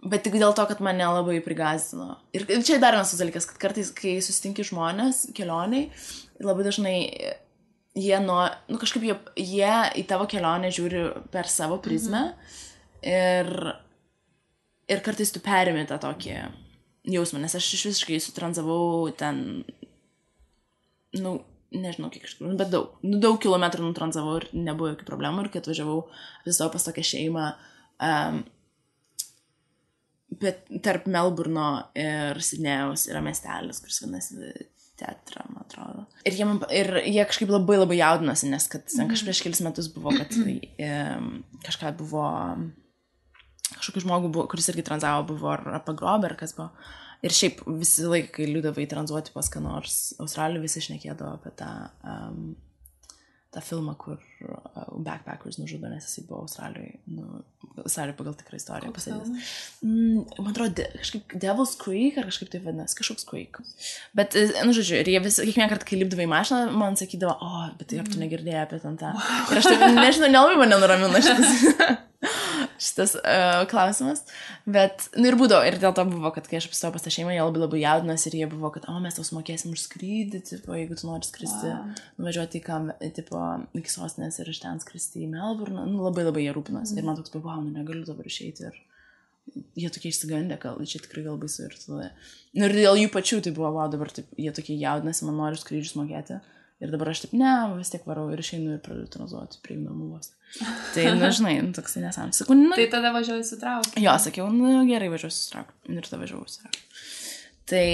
[SPEAKER 2] bet tik dėl to, kad mane labai prigąsdino. Ir čia dar vienas dalykas, kad kartais, kai susitinki žmonės kelioniai, labai dažnai jie kažkaip jie į tavo kelionę žiūri per savo prizmę ir kartais tu perimi tą tokį jausmą, nes aš visiškai sutranzavau ten, nežinau kiek iš tikrųjų, bet daug kilometrų nutranzavau ir nebuvo jokių problemų ir kai atvažiavau visą pas tokią šeimą, bet tarp Melburno ir Sidnėjaus yra miestelis, kuris vadinasi Tetra, man atrodo. Ir jie kažkaip labai labai jaudinosi, nes kad kažkaip prieš kelis metus buvo, kad kažką buvo, kažkokį žmogų buvo, kuris irgi tranzavo, buvo ar pagrobė, ar kas buvo. Ir šiaip visi laikai, kai liūdavai tranzuoti pas ką nors Australijoje, visi šnekėdavo apie tą filmą, kur backpackers nužudo, nes jisai buvo Australijoje, Australijoje pagal tikrą istoriją pasėdės. Man atrodo, kažkaip Devil's Creek, ar kažkaip tai vadinasi, kažkoks Creek. Bet, žodžiu, ir jie kiekvieną kartą, kai lipdavai į mašiną, man sakydavo, bet tai ar tu negirdėjai apie ten tą. Ir aš taip, nežinau, nelabai mane nuramina šitas klausimas. Bet, ir būdavo, ir dėl to buvo, kad kai aš apstojau pas tą šeimą, jie labai labai jaudinas ir jie buvo, kad, mes tau sumokėsim už skrydį, tipo, jeigu tu nori skristi, nuvažiuoti iki sostinės ir iš ten skristi į Melbourne, labai labai jie rūpinas. Ir man toks, negaliu dabar išeiti ir jie tokie išsigandę, čia tikrai gal baisu ir tada. Ir dėl jų pačių tai buvo, dabar taip, jie tokie jaudinasi, man nori skrydžius mokėti. Ir dabar aš taip, vis tiek varau ir išeinu ir pradedu tranzuoti prie namų vos. Tai, žinai, toksai nesąmonė. Sakau,
[SPEAKER 1] tai tada važiuoju su traukiniu.
[SPEAKER 2] Jo, sakiau, gerai važiuosiu su traukiniu. Ir tada važiuoju su traukiniu. Tai,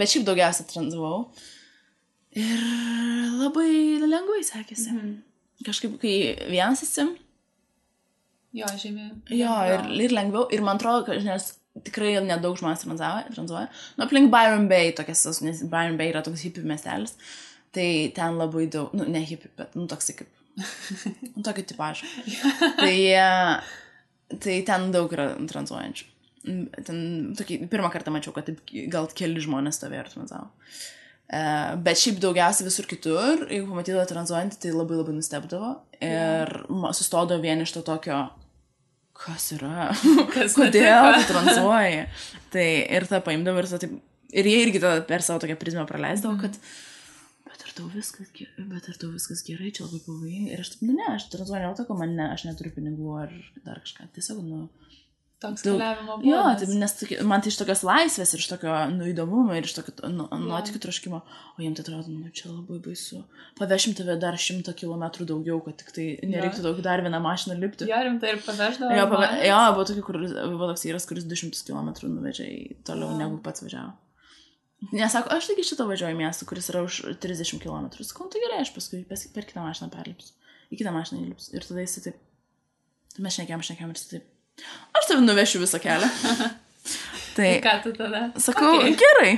[SPEAKER 2] bet šiaip daugiausia tranzavau. Ir labai lengvai sekėsi. Kažkaip, kai vienas esi.
[SPEAKER 1] Jo, žymiai.
[SPEAKER 2] Jo, ir lengviau. Ir man atrodo, nes tikrai nedaug žmonės tranzuoja. Aplink Byron Bay, nes Byron Bay yra toks hippie miestelis. Tai ten labai daug, ne hippie, bet, toksai kaip, tokio tipažo. Tai ten daug yra tranzuojančių. Ten, pirmą kartą mačiau, kad taip, gal keli žmonės stovėjo ir tranzavo. Bet šiaip daugiausiai visur kitur, jeigu pamatydavo tranzuojantį, tai labai labai nustebdavo. Ir sustodavo vien iš to tokio, kas yra, kodėl tu tranzuoji. Tai ir tą paimdavo ir jie irgi per savo tokią prizmę praleisdavo, kad Bet ar tau viskas gerai, čia labai pavojinga. Ir aš taip, aš tranzuoju, ne to, kad aš neturiu pinigų ar dar kažką. Tiesiog,
[SPEAKER 1] toks keliavimo būdas.
[SPEAKER 2] Jo, taip, nes man tai iš tokios laisvės ir iš tokio įdomumo ir iš tokio nuotykių troškimo, o jiems tai atrodo, čia labai baisu. Pavešim tave dar 100 kilometrų daugiau, kad tik tai nereiktų daug dar vieną mašiną lipti.
[SPEAKER 1] Jo, rimtai ir paveždavo.
[SPEAKER 2] Jo, buvo toks vyras, kuris 200 kilometrų nuvežė toliau negu pats važiavo. Nesako, aš taigi šitą važiuoju į miestą, kuris yra už 30 kilometrų. Sakau, tai gerai, aš paskui per kitą mašiną perlipsiu. Į kitą mašiną įlipsiu. Ir tada jis taip, mes šnekėjom ir jis taip, aš tave nuvešiu visą kelią. Tai
[SPEAKER 1] ką tu tada?
[SPEAKER 2] Sakau, gerai.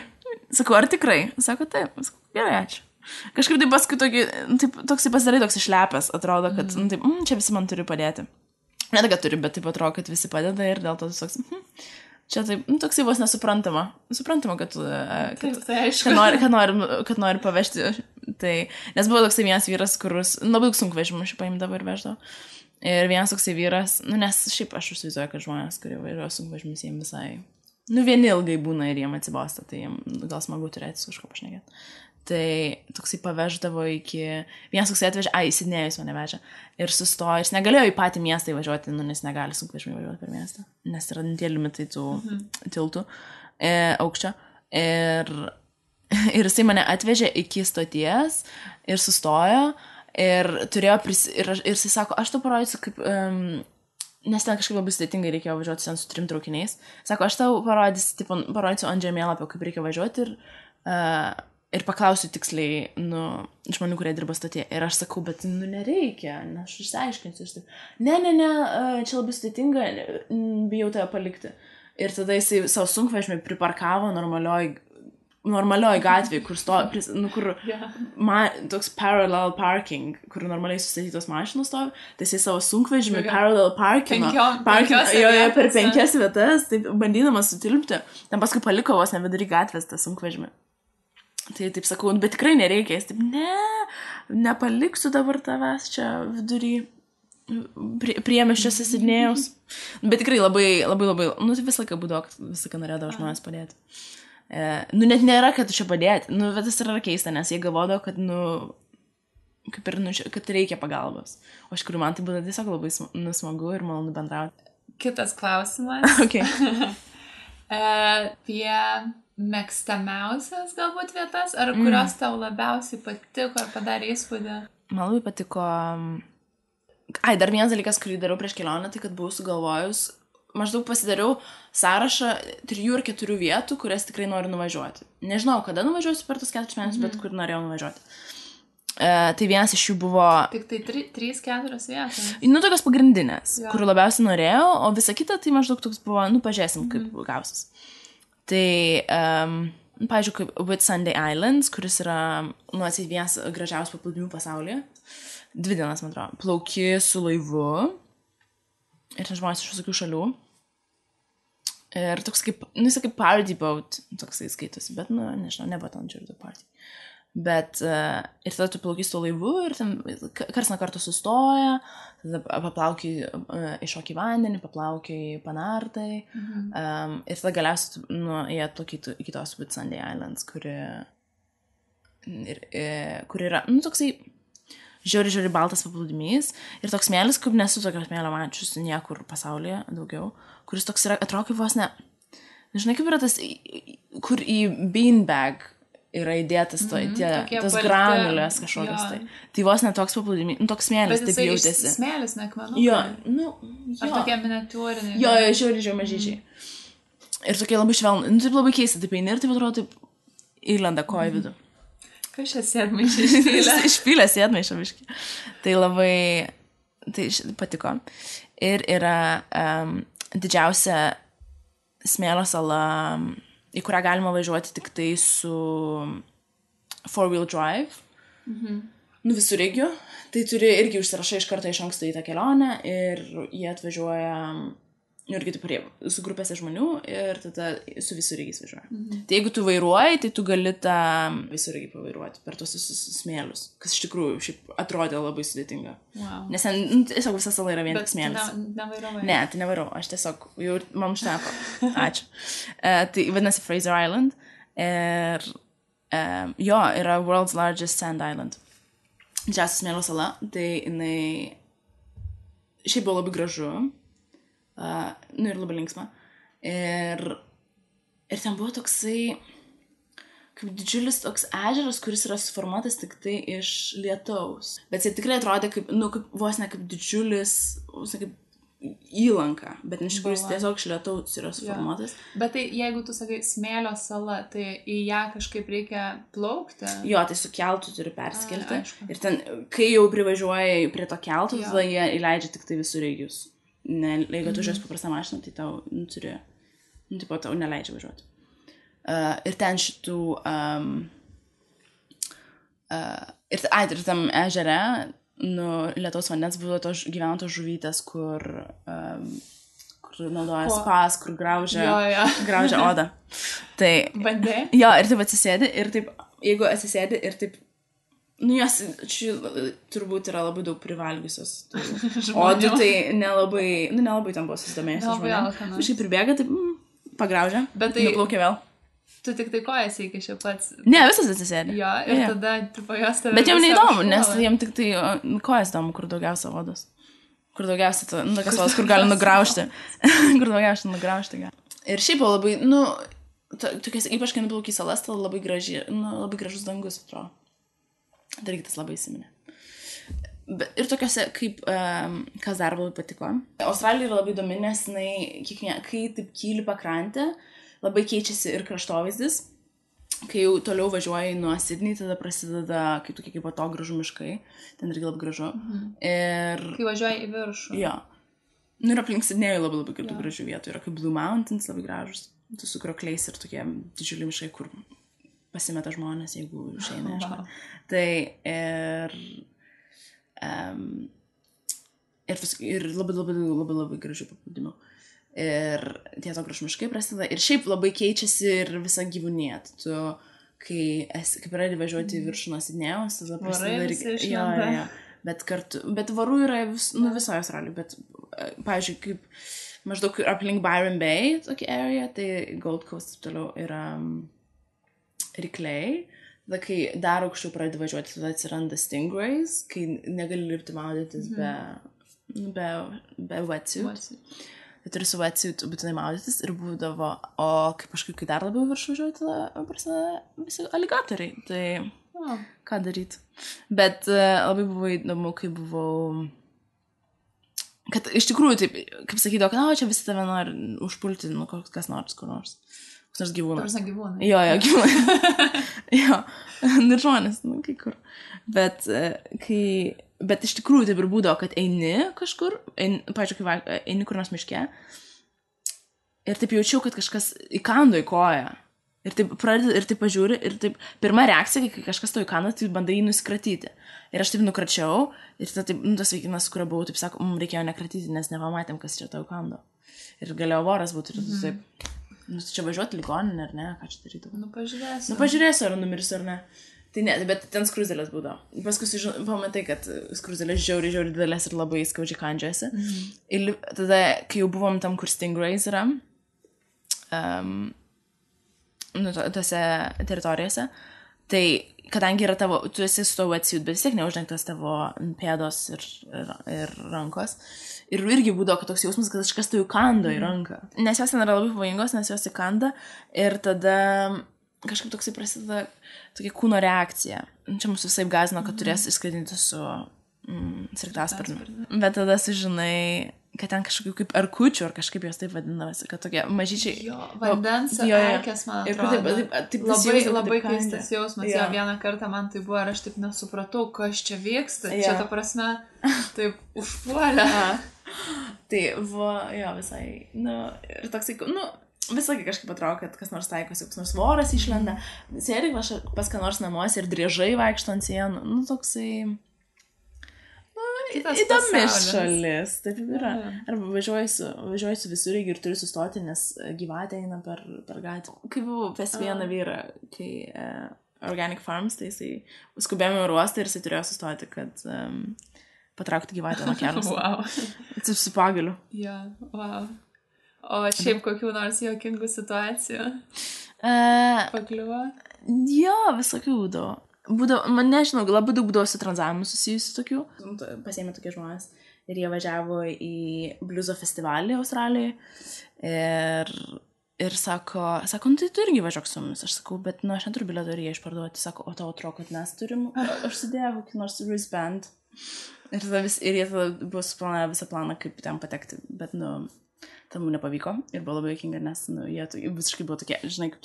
[SPEAKER 2] Sakau, ar tikrai? Sako, taip. Sakau, gerai, ačiū. Kažkaip taip paskui toks pasidarai toks išlepęs, atrodo, kad taip, čia visi man turi padėti. Ne tai, kad turi, bet taip atrodo, kad visi padeda ir dėl to toks, čia taip, toksai vos nesuprantama. Suprantama, kad nori pavežti. Tai, nes buvo toksai vienas vyras, kuris labai daug sunkvežimų šiaip paimdavo ir veždavo. Ir vienas toksai vyras, nes šiaip aš užsivaizduoju, kad žmonės, kurie vairuoja sunkvežimis, jiems visai, vieni ilgai būna ir jiems atsibosta, tai jiems gal smagu turėti su kažko pašnekėti. Tai toksai paveždavo iki, vienas toksai atvežė, į Sidnėjus mane vežė ir sustojo, jis negalėjo į patį miestą įvažiuoti, nes negali sunkvežimį važiuoti per miestą, nes yra tie limitai tų tiltų aukščio. Ir jisai mane atvežė iki stoties ir sustojo. Ir turėjo ir jisai sako, aš tau parodysiu, kaip, nes ten kažkaip labai sudėtingai reikėjo važiuoti ten su 3 traukiniais. Sako, aš tau parodysiu ant žemėlapio, kaip reikia važiuoti ir paklausiu tiksliai, žmonių, kurie dirba stotyje. Ir aš sakau, bet, nereikia, aš išsiaiškinsiu. Ne, čia labai sudėtinga, bijau tave palikti. Ir tada jisai savo sunkvežimį priparkavo normalioj gatvėje, kur toks parallel parking, kur normaliai sustatytos mašinos stovi, tai jisai savo sunkvežimį parallel parking per 5 vietas, taip bandydamas sutilpti, ten paskui paliko vos nevidury gatvės tą sunkvežimį. Tai taip sakau, bet tikrai nereikia, jis taip, nepaliksiu dabar tavęs čia vidury priemiesčiuose Sidnėjaus. Bet tikrai labai, tai visą laiką būdavo, visą laiką norėdavo žmonės padėti. Net nėra, kad čia padėti. Bet tas yra keista, nes jie galvodavo, kad, kaip ir, kad reikia pagalbos. O iš kurių man tai būtų tiesiog labai smagu ir malonu bendrauti.
[SPEAKER 1] Kitas klausimas.
[SPEAKER 2] Okay.
[SPEAKER 1] Apie mėgstamiausias galbūt vietas, ar kurios tau labiausiai patiko ar padarė įspūdį?
[SPEAKER 2] Man labai patiko... dar vienas dalykas, kurį dariau prieš kelionę, tai kad buvau sugalvojus, maždaug pasidariau sąrašą 3 ar 4 vietų, kurias tikrai noriu nuvažiuoti. Nežinau, kada nuvažiuosiu per tos 4 mėnesius, bet kur norėjau nuvažiuoti. Tai vienas iš jų buvo...
[SPEAKER 1] Tik tai 3-4 vietos.
[SPEAKER 2] Tokios pagrindinės, kurių labiausiai norėjau, o visa kita tai maždaug toks buvo, pažiūrėsim, kaip gausis. Tai, pavyzdžiui, kaip Whitsunday Islands, kuris yra, atseit vienas gražiausių paplūdimių pasaulyje. 2 dienas, man atrodo. Plauki su laivu. Ir ten žmonės iš visokių šalių. Ir toks kaip, jis kaip party boat, toksai skaitosi, bet, nežinau, nebuvo ten žiūrėtų party. Bet, ir tada tu plauki su laivu ir ten kars nuo karto sustoja, tada paplaukiai iššoki vandenį, paplaukiai panartai. Ir tada galiausiai jie atplaukytų iki tos Whitsunday Islands, kuri yra, toksai žiauri baltas paplūdimys ir toks smėlis, kaip nesu tokio smėlio mačius niekur pasaulyje daugiau, kuris toks yra, atrodo kaip vos ne, nežinai kaip yra tas, kur į beanbag yra įdėtas tas granulės kažkokios tai. Tai vos ne toks paplūdimys, toks smėlis, taip jautėsi.
[SPEAKER 1] Bet jisai smėlis, ne akmenukai?
[SPEAKER 2] Jo.
[SPEAKER 1] Ar tokie miniatūriniai?
[SPEAKER 2] Jo, žiauri mažyčiai. Ir tokie labai švelnų, taip labai keista, taip eini ir taip atrodo, taip įlenda koja vidų.
[SPEAKER 1] Kas čia sėdmaišė išpylė?
[SPEAKER 2] Išpylė sėdmaišę biškį. Tai labai, tai patiko. Ir yra didžiausia smėlio sala, į kurią galima važiuoti tik tai su 4-wheel drive. Visureigiu. Tai turi irgi užsirašai iš karto iš anksto į tą kelionę ir jie atvažiuoja irgi taip su grupėse žmonių ir tada su visureigiais važiuoja. Tai jeigu tu vairuoji, tai tu gali tą visureigį pavairuoti per tos smėlius, kas iš tikrųjų šiaip atrodė labai sudėtinga.
[SPEAKER 1] Wow.
[SPEAKER 2] Nes ten tiesiog visa sala yra vien tik smėlis.
[SPEAKER 1] Bet nevairavai?
[SPEAKER 2] Ne, tai nevairau. Aš tiesiog, jau man užteko. Ačiū. Tai vadinasi Fraser Island. Ir Jo, yra World's Largest Sand Island. Didžiausia smėlio sala, tai jinai šiaip buvo labai gražu, ir labai linksma. Ir ten buvo toksai, kaip didžiulis toks ežeras, kuris yra suformuotas tik tai iš lietaus. Bet jis tikrai atrodė kaip, kaip vos ne kaip didžiulis, vos ne kaip įlanka, bet iš tikrųjų jis tiesiog iš lietaus yra suformuotas.
[SPEAKER 1] Bet tai jeigu tu sakai smėlio sala, tai į ją kažkaip reikia plaukti?
[SPEAKER 2] Jo, tai su keltu turi perskelti. Ir ten, kai jau privažiuoji prie to keltų, tada jie įleidžia tik tai visureigius. Jeigu tu žiūrės paprastą mašiną, tai tau turi, tipo, tau neleidžia važiuoti. Ir ten šitų, ir tam ežere, lietaus vandens buvo gyveno tos žuvytės, kur naudoja spas, kur graužia odą. Tai,
[SPEAKER 1] bandė?
[SPEAKER 2] Jo, ir taip atsisėdi, ir taip, jeigu atsisėdi, ir taip, jos turbūt yra labai daug privalgiusios. Odų tai nelabai tam buvo susidomėjusios žmonėm. Kažkaip pribėga, taip, pagraužia, nuplaukia vėl.
[SPEAKER 1] Tu tik tai kojas įkiši pats.
[SPEAKER 2] Ne, visas atsisėdė.
[SPEAKER 1] Jo, ir tada tripo jos tave.
[SPEAKER 2] Bet jiem neįdomu, nes jiem tik tai kojas įdomu, kur daugiausia odos. Kur daugiausia, tokias odos, kur gali nugraužti. Kur daugiausia nugraužti gali. Ir šiaip buvo labai, tokias, ypač kai nuplauk į salas, tai labai gražus dangus, atrodo. Tai irgi tas labai įsiminė. Ir tokiuose, kaip, kas dar labai patiko. Australija yra labai įdomi, nes kai taip kyli pakrantė, labai keičiasi ir kraštovaizdis. Kai jau toliau važiuoji nuo Sydney, tada prasideda kaip atogrąžų miškai. Ten irgi labai gražu. Ir...
[SPEAKER 1] Kai važiuoji į viršų.
[SPEAKER 2] Jo. Ir aplink Sydney'ų labai gražių vietų. Yra kaip Blue Mountains, labai gražus. Tu su krokliais ir tokie didžiuliai miškai, kur pasimeta žmonės, jeigu išeina.
[SPEAKER 1] Wow.
[SPEAKER 2] Tai ir labai gražių paplūdimių. Ir tie atogrąžų miškai prasideda. Ir šiaip labai keičiasi ir visa gyvūnija. Tu, kai pradedi važiuoti į viršų nuo Sidnėjaus, tada prasideda... Bet varų yra visoje Australijoje. Bet, pavyzdžiui, kaip maždaug aplink Byron Bay, tokia area, tai Gold Coast toliau yra rykliai. Tada, kai dar aukščiau pradedi važiuoti, tada atsiranda stingrays, kai negali lipti maudytis be wetsuit. Tai turi su wetsuit būtinai maudytis ir būdavo, o kai dar labiau viršų važiuoju, tada prasideda visi aligatoriai. Tai ką daryti. Bet labai buvo įdomu, kai buvau... Kad iš tikrųjų, taip, kaip sakydavo, kad čia visi tave nori užpulti, kas nors, kur nors. Kas nors gyvūnas.
[SPEAKER 1] Tarsi gyvūnai.
[SPEAKER 2] Jo, gyvūnai. Jo, ir žmonės, kai kur. Bet iš tikrųjų taip ir būdavo, kad eini kažkur, pavyzdžiui, kai eini kur nors miške, ir taip jaučiau, kad kažkas įkando į koją. Ir taip pradedi, ir taip pažiūri, ir taip pirma reakcija, kai kažkas to įkando, tai bandai jį nusikratyti. Ir aš taip nukračiau, ir taip, tas vaikinas, kurio buvau, taip sako, reikėjo nekratyti, nes nepamatėm, kas čia to įkando. Ir galėjo voras būti, ir tu taip, čia važiuoti ligoninę, ar ne, ką čia daryti. Pažiūrėsiu, ar numirsiu, ar ne. Tai ne, bet ten skruzdėlės būdavo. Paskui pamatai, kad skruzdėlės žiauriai didelės ir labai skaudžiai kandžiuosi. Ir tada, kai jau buvom tam, kur stingrays yra, tose teritorijose, tai kadangi yra tavo, tu esi su to wetsuit, bet vis tiek neuždengtas tavo pėdos ir rankos. Ir irgi būdavo, kad toks jausmas, kad kažkas tai įkando į ranką. Nes jos ten yra labai pavojingos, nes jos įkanda ir tada kažkaip toksai prasideda tokia kūno reakcija. Čia mūsų visai gąsdino, kad turės išskraidinti su sraigtasparniu. Bet tada sužinai, kad ten kažkokių kaip erkučių, ar kažkaip jos taip vadinasi, kad tokie mažyčiai...
[SPEAKER 1] Jo, vandens erkės, man atrodo. Labai keistas jausmas. Jo, vieną kartą man tai buvo, ir aš taip nesupratau, kas čia vyksta. Čia ta prasme, taip užpuolė.
[SPEAKER 2] Tai buvo, jo, visai, ir toksai, visąkai kažkaip atrodo, kad kas nors taikosi, kas nors voras išlenda, sėdi pas ką nors namuose ir driežai vaikšto ant sienų, toksai, įdomi šalis, taip yra. Arba važiuoju su visureigiu ir turiu sustoti, nes gyvatė eina per gatvę. Kai buvau pas vieną vyrą, kai Organic Farms, tai jisai skubėjome į uostą ir jisai turėjo sustoti, kad patraukti gyvatę nuo kelio.
[SPEAKER 1] Wow.
[SPEAKER 2] Su pagaliu.
[SPEAKER 1] Ja, wow. O šiaip kokių nors juokingų situacijų pakliuvo?
[SPEAKER 2] Jo, visokių būdavo. Man nežinau, labai daug būdavo su tranzavimu susijusių tokių. Pasėmė tokie žmonės ir jie važiavo į bliuzo festivalį Australijoje ir sako, nu tai tu irgi važiuok su mumis. Aš sakau, bet aš neturiu bilieto ir jie išparduoti. Sako, o tau atrodo, kad mes turim. Aš sudėjau kokį nors wristband. Ir jie tada buvo suplanavę visą planą, kaip ten patekti. Bet, tam nepavyko ir buvo labai juokinga, nes jie visiškai buvo tokie, žinai, kaip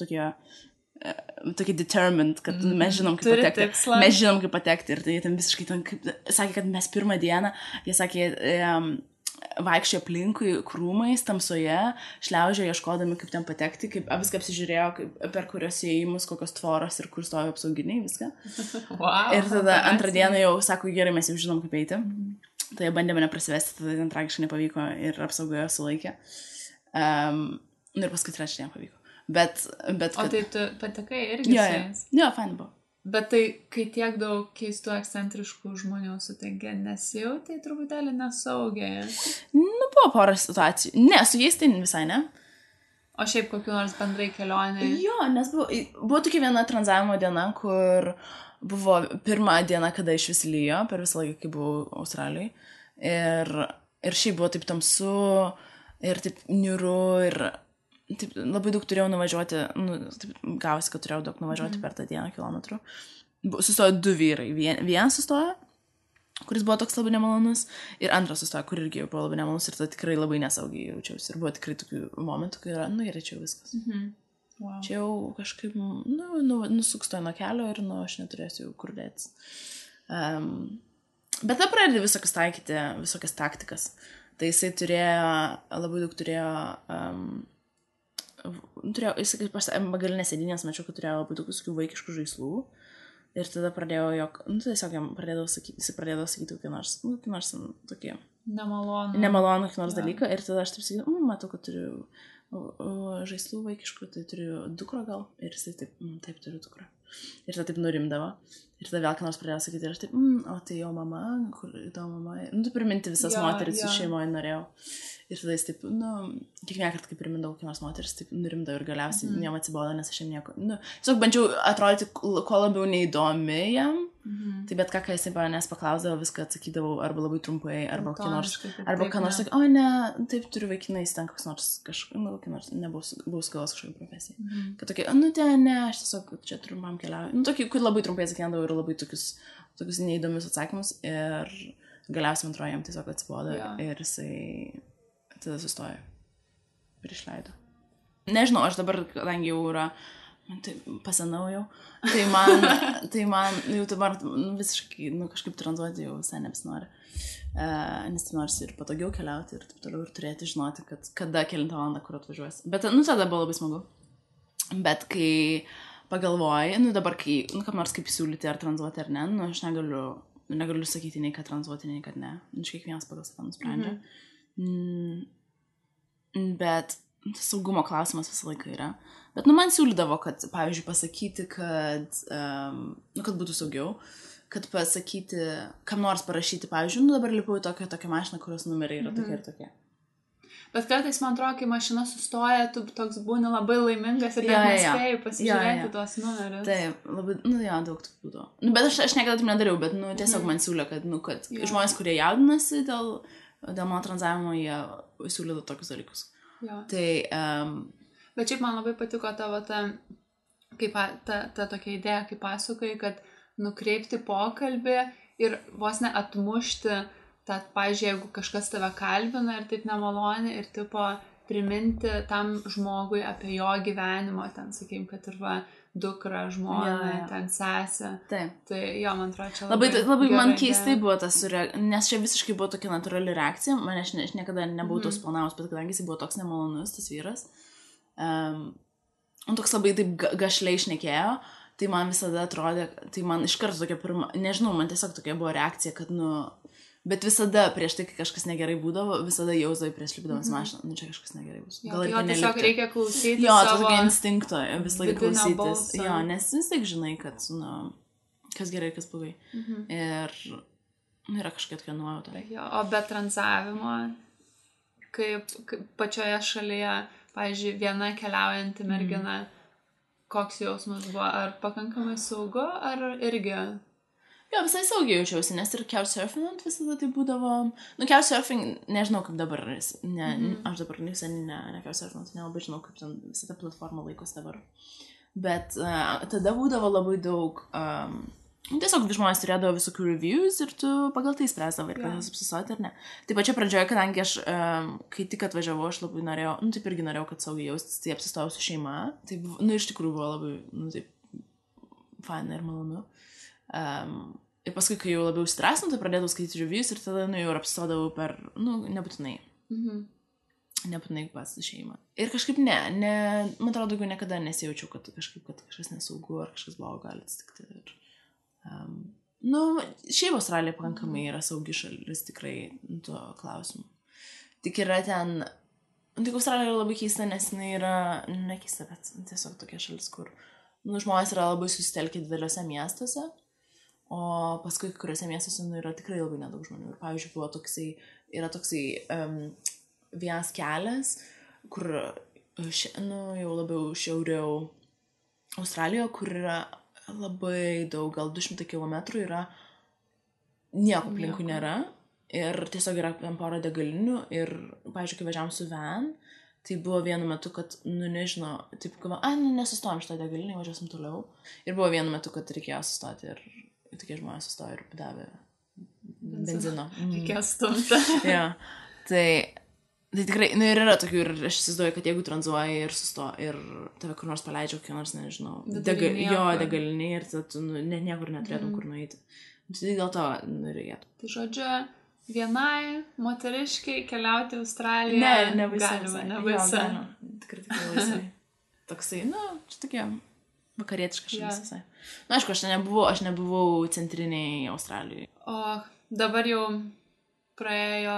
[SPEAKER 2] tokie determined, kad mes žinom, kaip patekti. Mes žinom, kaip patekti ir tai jie ten visiškai sakė, kad mes pirmą dieną, jie sakė, vaikščiojo aplinkui krūmais, tamsoje, šliaužiojo ieškodami, kaip ten patekti, kaip viską apsižiūrėjo, per kurios įėjimus, kokios tvoros ir kur stojo apsauginiai, viską.
[SPEAKER 1] Wow,
[SPEAKER 2] ir tada antrą dieną jau sako, gerai, mes jau žinom, kaip eiti. Tai jie bandė mane prasivesti, tada ten tragiškai nepavyko ir apsaugojo sulaikė. Ir paskui trečią dieną pavyko. Bet
[SPEAKER 1] o tai tu patekai irgi su jais?
[SPEAKER 2] Jo, fain buvo.
[SPEAKER 1] Bet tai, kai tiek daug keistų ekscentriškų žmonių sutinki, nesijautai truputėlį nesaugiai?
[SPEAKER 2] Buvo porą situacijų. Ne, su jais tai visai ne.
[SPEAKER 1] O šiaip kokiu nors bendrai kelionė?
[SPEAKER 2] Jo, nes buvo tokia viena tranzavimo diena, kur buvo pirmą dieną, kada iš vis lyjo, per visą laiką, kai buvau Australijoje. Ir šiaip buvo taip tamsu, ir taip niūru, ir taip, labai daug turėjau nuvažiuoti, taip gavosi, kad turėjau daug nuvažiuoti per tą dieną kilometrų. Sustojo 2 vyrai. Vienas sustojo, kuris buvo toks labai nemalonus, ir antras sustojo, kur irgi buvo labai nemalonus, ir tada tikrai labai nesaugiai jaučiausi. Ir buvo tikrai tokių momentų, kai yra, gerai, čia jau viskas.
[SPEAKER 1] Wow.
[SPEAKER 2] Čia jau kažkaip, nusukstoju nuo kelio ir, aš neturėsiu jau kur dėtis. Bet tada pradedi visokias taikyti, visokias taktikas. Tai jisai labai daug turėjo, jisai bagalinės sėdinės, mačiau, kad turėjo labai daug visokių vaikiškų žaislų. Ir tada pradėjau tiesiog jam pradėdavo sakyti kokį nors tokį nemalonų kokį nors dalyką. Ir tada aš taip sakydavau, matau, kad turiu žaislų vaikiškų, tai turiu dukrą gal. Ir jisai taip turiu dukrą. Ir tada taip nurimdavo. Ir tada vėl ką nors pradėjo sakyti. Ir aš taip, o tai jo mama, kur tavo mama. Tu priminti visas moteris su šeimoje norėjau. Ir tada jis taip, kiekvieną kartą, kai primindavau kokį nors moteris, taip nurimdavo ir galiausiai jam atsibodo, nes aš jam nieko. Tiesiog bandžiau atrodyti kuo labiau neįdomi jam. Tai bet ką jisai manęs paklausdavo, viską atsakydavau arba labai trumpai, arba ką nors sakė, o ne, taip turiu vaikinais, ten koks nors kokį nors, nebuvau skalos kažkokią profesiją. Kad tokie, ne, aš tiesiog čia turiu mam keliauju. Tokį, kur labai trumpai atsakydavau ir labai tokius neįdomius atsakymus ir galiausiai antroje jam tiesiog atsibodo ir jisai tada sustojo ir išleido. Nežinau, aš dabar, kadangi jau yra tai pasenau jau, tai man jau dabar visiškai, kažkaip tranzuoti jau visai nebesinori. Nes tai nors ir patogiau keliauti ir taip toliau ir turėti žinoti, kad kada kelintą valandą kur atvažiuosi. Bet, tada buvo labai smagu. Bet kai pagalvoji, dabar kai, kam nors kaip siūlyti ar tranzuoti ar ne, aš negaliu sakyti nei kad tranzuoti, nei kad ne. Kiekvienas pagal save nusprendžia. Bet saugumo klausimas visą laiką yra. Bet, man siūlydavo, kad, pavyzdžiui, pasakyti, kad būtų saugiau, kad pasakyti, kam nors parašyti, pavyzdžiui, dabar lipau į tokią mašiną, kurios numeriai yra tokie ir tokie.
[SPEAKER 1] Bet kartais, man atrodo, kai mašina sustoja, tu toks būni labai laimingas ir nespėjai pasižiūrėti tuos numerius.
[SPEAKER 2] Taip, labai, daug tų būdavo. Bet aš niekada taip nedariau, bet, tiesiog man siūlė, kad žmonės, kurie jaudinasi dėl mano tranzavimo, jie siūlydavo tokius dalykus. Tai
[SPEAKER 1] bet šiaip man labai patiko tavo ta tokia idėja, kaip pasakoji, kad nukreipti pokalbį ir vos ne atmušti tą, pavyzdžiui, jeigu kažkas tave kalbina ir taip nemaloni ir tipo priminti tam žmogui apie jo gyvenimo, ten, sakykim, kad ir dukra, žmona, ten sesė.
[SPEAKER 2] Taip.
[SPEAKER 1] Tai man atrodo, čia
[SPEAKER 2] labai man keistai buvo tas, nes čia visiškai buvo tokia natūrali reakcija, aš niekada nebuvau tos planavus, bet kadangi jis buvo toks nemalonus, tas vyras, toks labai taip gašliai šnekėjo, tai man visada atrodė, tai man iš karto tokia pirma, nežinau, man tiesiog tokia buvo reakcija, kad, bet visada prieš tai, kai kažkas negerai būdavo, visada jausdavai prieš lipdamas mašiną, čia kažkas negerai bus.
[SPEAKER 1] Jo, tiesiog reikia klausyti
[SPEAKER 2] savo tokio instinkto, vis laik klausytis. Jo, nes vis laik žinai, kad, kas gerai, kas blogai. Ir yra kažkokia tokia nuojauta.
[SPEAKER 1] O be tranzavimo, kaip pačioje šalyje, pavyzdžiui, viena keliaujanti mergina, koks jausmas buvo, ar pakankamai saugu, ar irgi?
[SPEAKER 2] Jo, visai saugiai jaučiausi, nes ir couchsurfing visada tai būdavo, couchsurfing, nežinau kaip dabar, aš dabar visai ne couchsurfing, nelabai žinau, kaip ten visą tą platformą laikosi dabar. Bet tada būdavo labai daug, tiesiog žmonės turėdavo visokių reviews ir tu pagal tai spręsdavo ir kas apsisoti ar ne. Taip pačia pradžioje, kadangi aš, kai tik atvažiavau, aš labai norėjau, taip irgi norėjau, kad saugiai jaustis, tai apsistojau su šeima. Tai, iš tikrųjų buvo labai, taip, faina ir malonu. Ir paskui, kai jau labiau stresinu, tai pradėdavau skaityti reviews ir tada, jau ir apsistodavau per, nebūtinai. Nebūtinai pas šeimą. Ir kažkaip man atrodo, daugiau niekada nesijaučiau, kad kažkas nesaugu ar kažkas blogo gali atsitikti. Ir, šiaip Australija pakankamai yra saugi šalis tikrai tuo klausimu. Tik yra ten, tik Australija yra labai keista, nes jinai yra, nekeista, bet tiesiog tokia šalis, kur žmonės yra labai susitelkę dideliuose miestuose, o paskui kuriuose miestuose yra tikrai labai nedaug žmonių. Ir pavyzdžiui, yra toksai vienas kelias, kur jau labiau šiauriau Australijoje, kur yra labai daug, gal 200 kilometrų yra, nieko aplinkui nėra ir tiesiog yra porą degalinių ir, pavyzdžiui, kai važiavom su van, tai buvo vienu metu, kad, nežinau, taip, nesustojom šitą degalinį, važiuosim toliau ir buvo vienu metu, kad reikėjo sustoti ir tokie žmonės sustojo ir davė benzino.
[SPEAKER 1] Reikėjo stumti.
[SPEAKER 2] Ja, tai tikrai, ir yra tokių, ir aš įsivaizduoju, kad jeigu tranzuoji ir ir tave kur nors paleidžia, kokį nors, nežinau, degalinį ir tu niekur neturėtum kur nueiti. Tai dėl to reikėtų.
[SPEAKER 1] Tai žodžiu, vienai moteriškai keliauti į Australiją
[SPEAKER 2] nebaisu. Tikrai laisvai. Toksai, čia tokia vakarietiška šalis visai. Aišku, aš nebuvau centriniai Australijai.
[SPEAKER 1] O dabar jau praėjo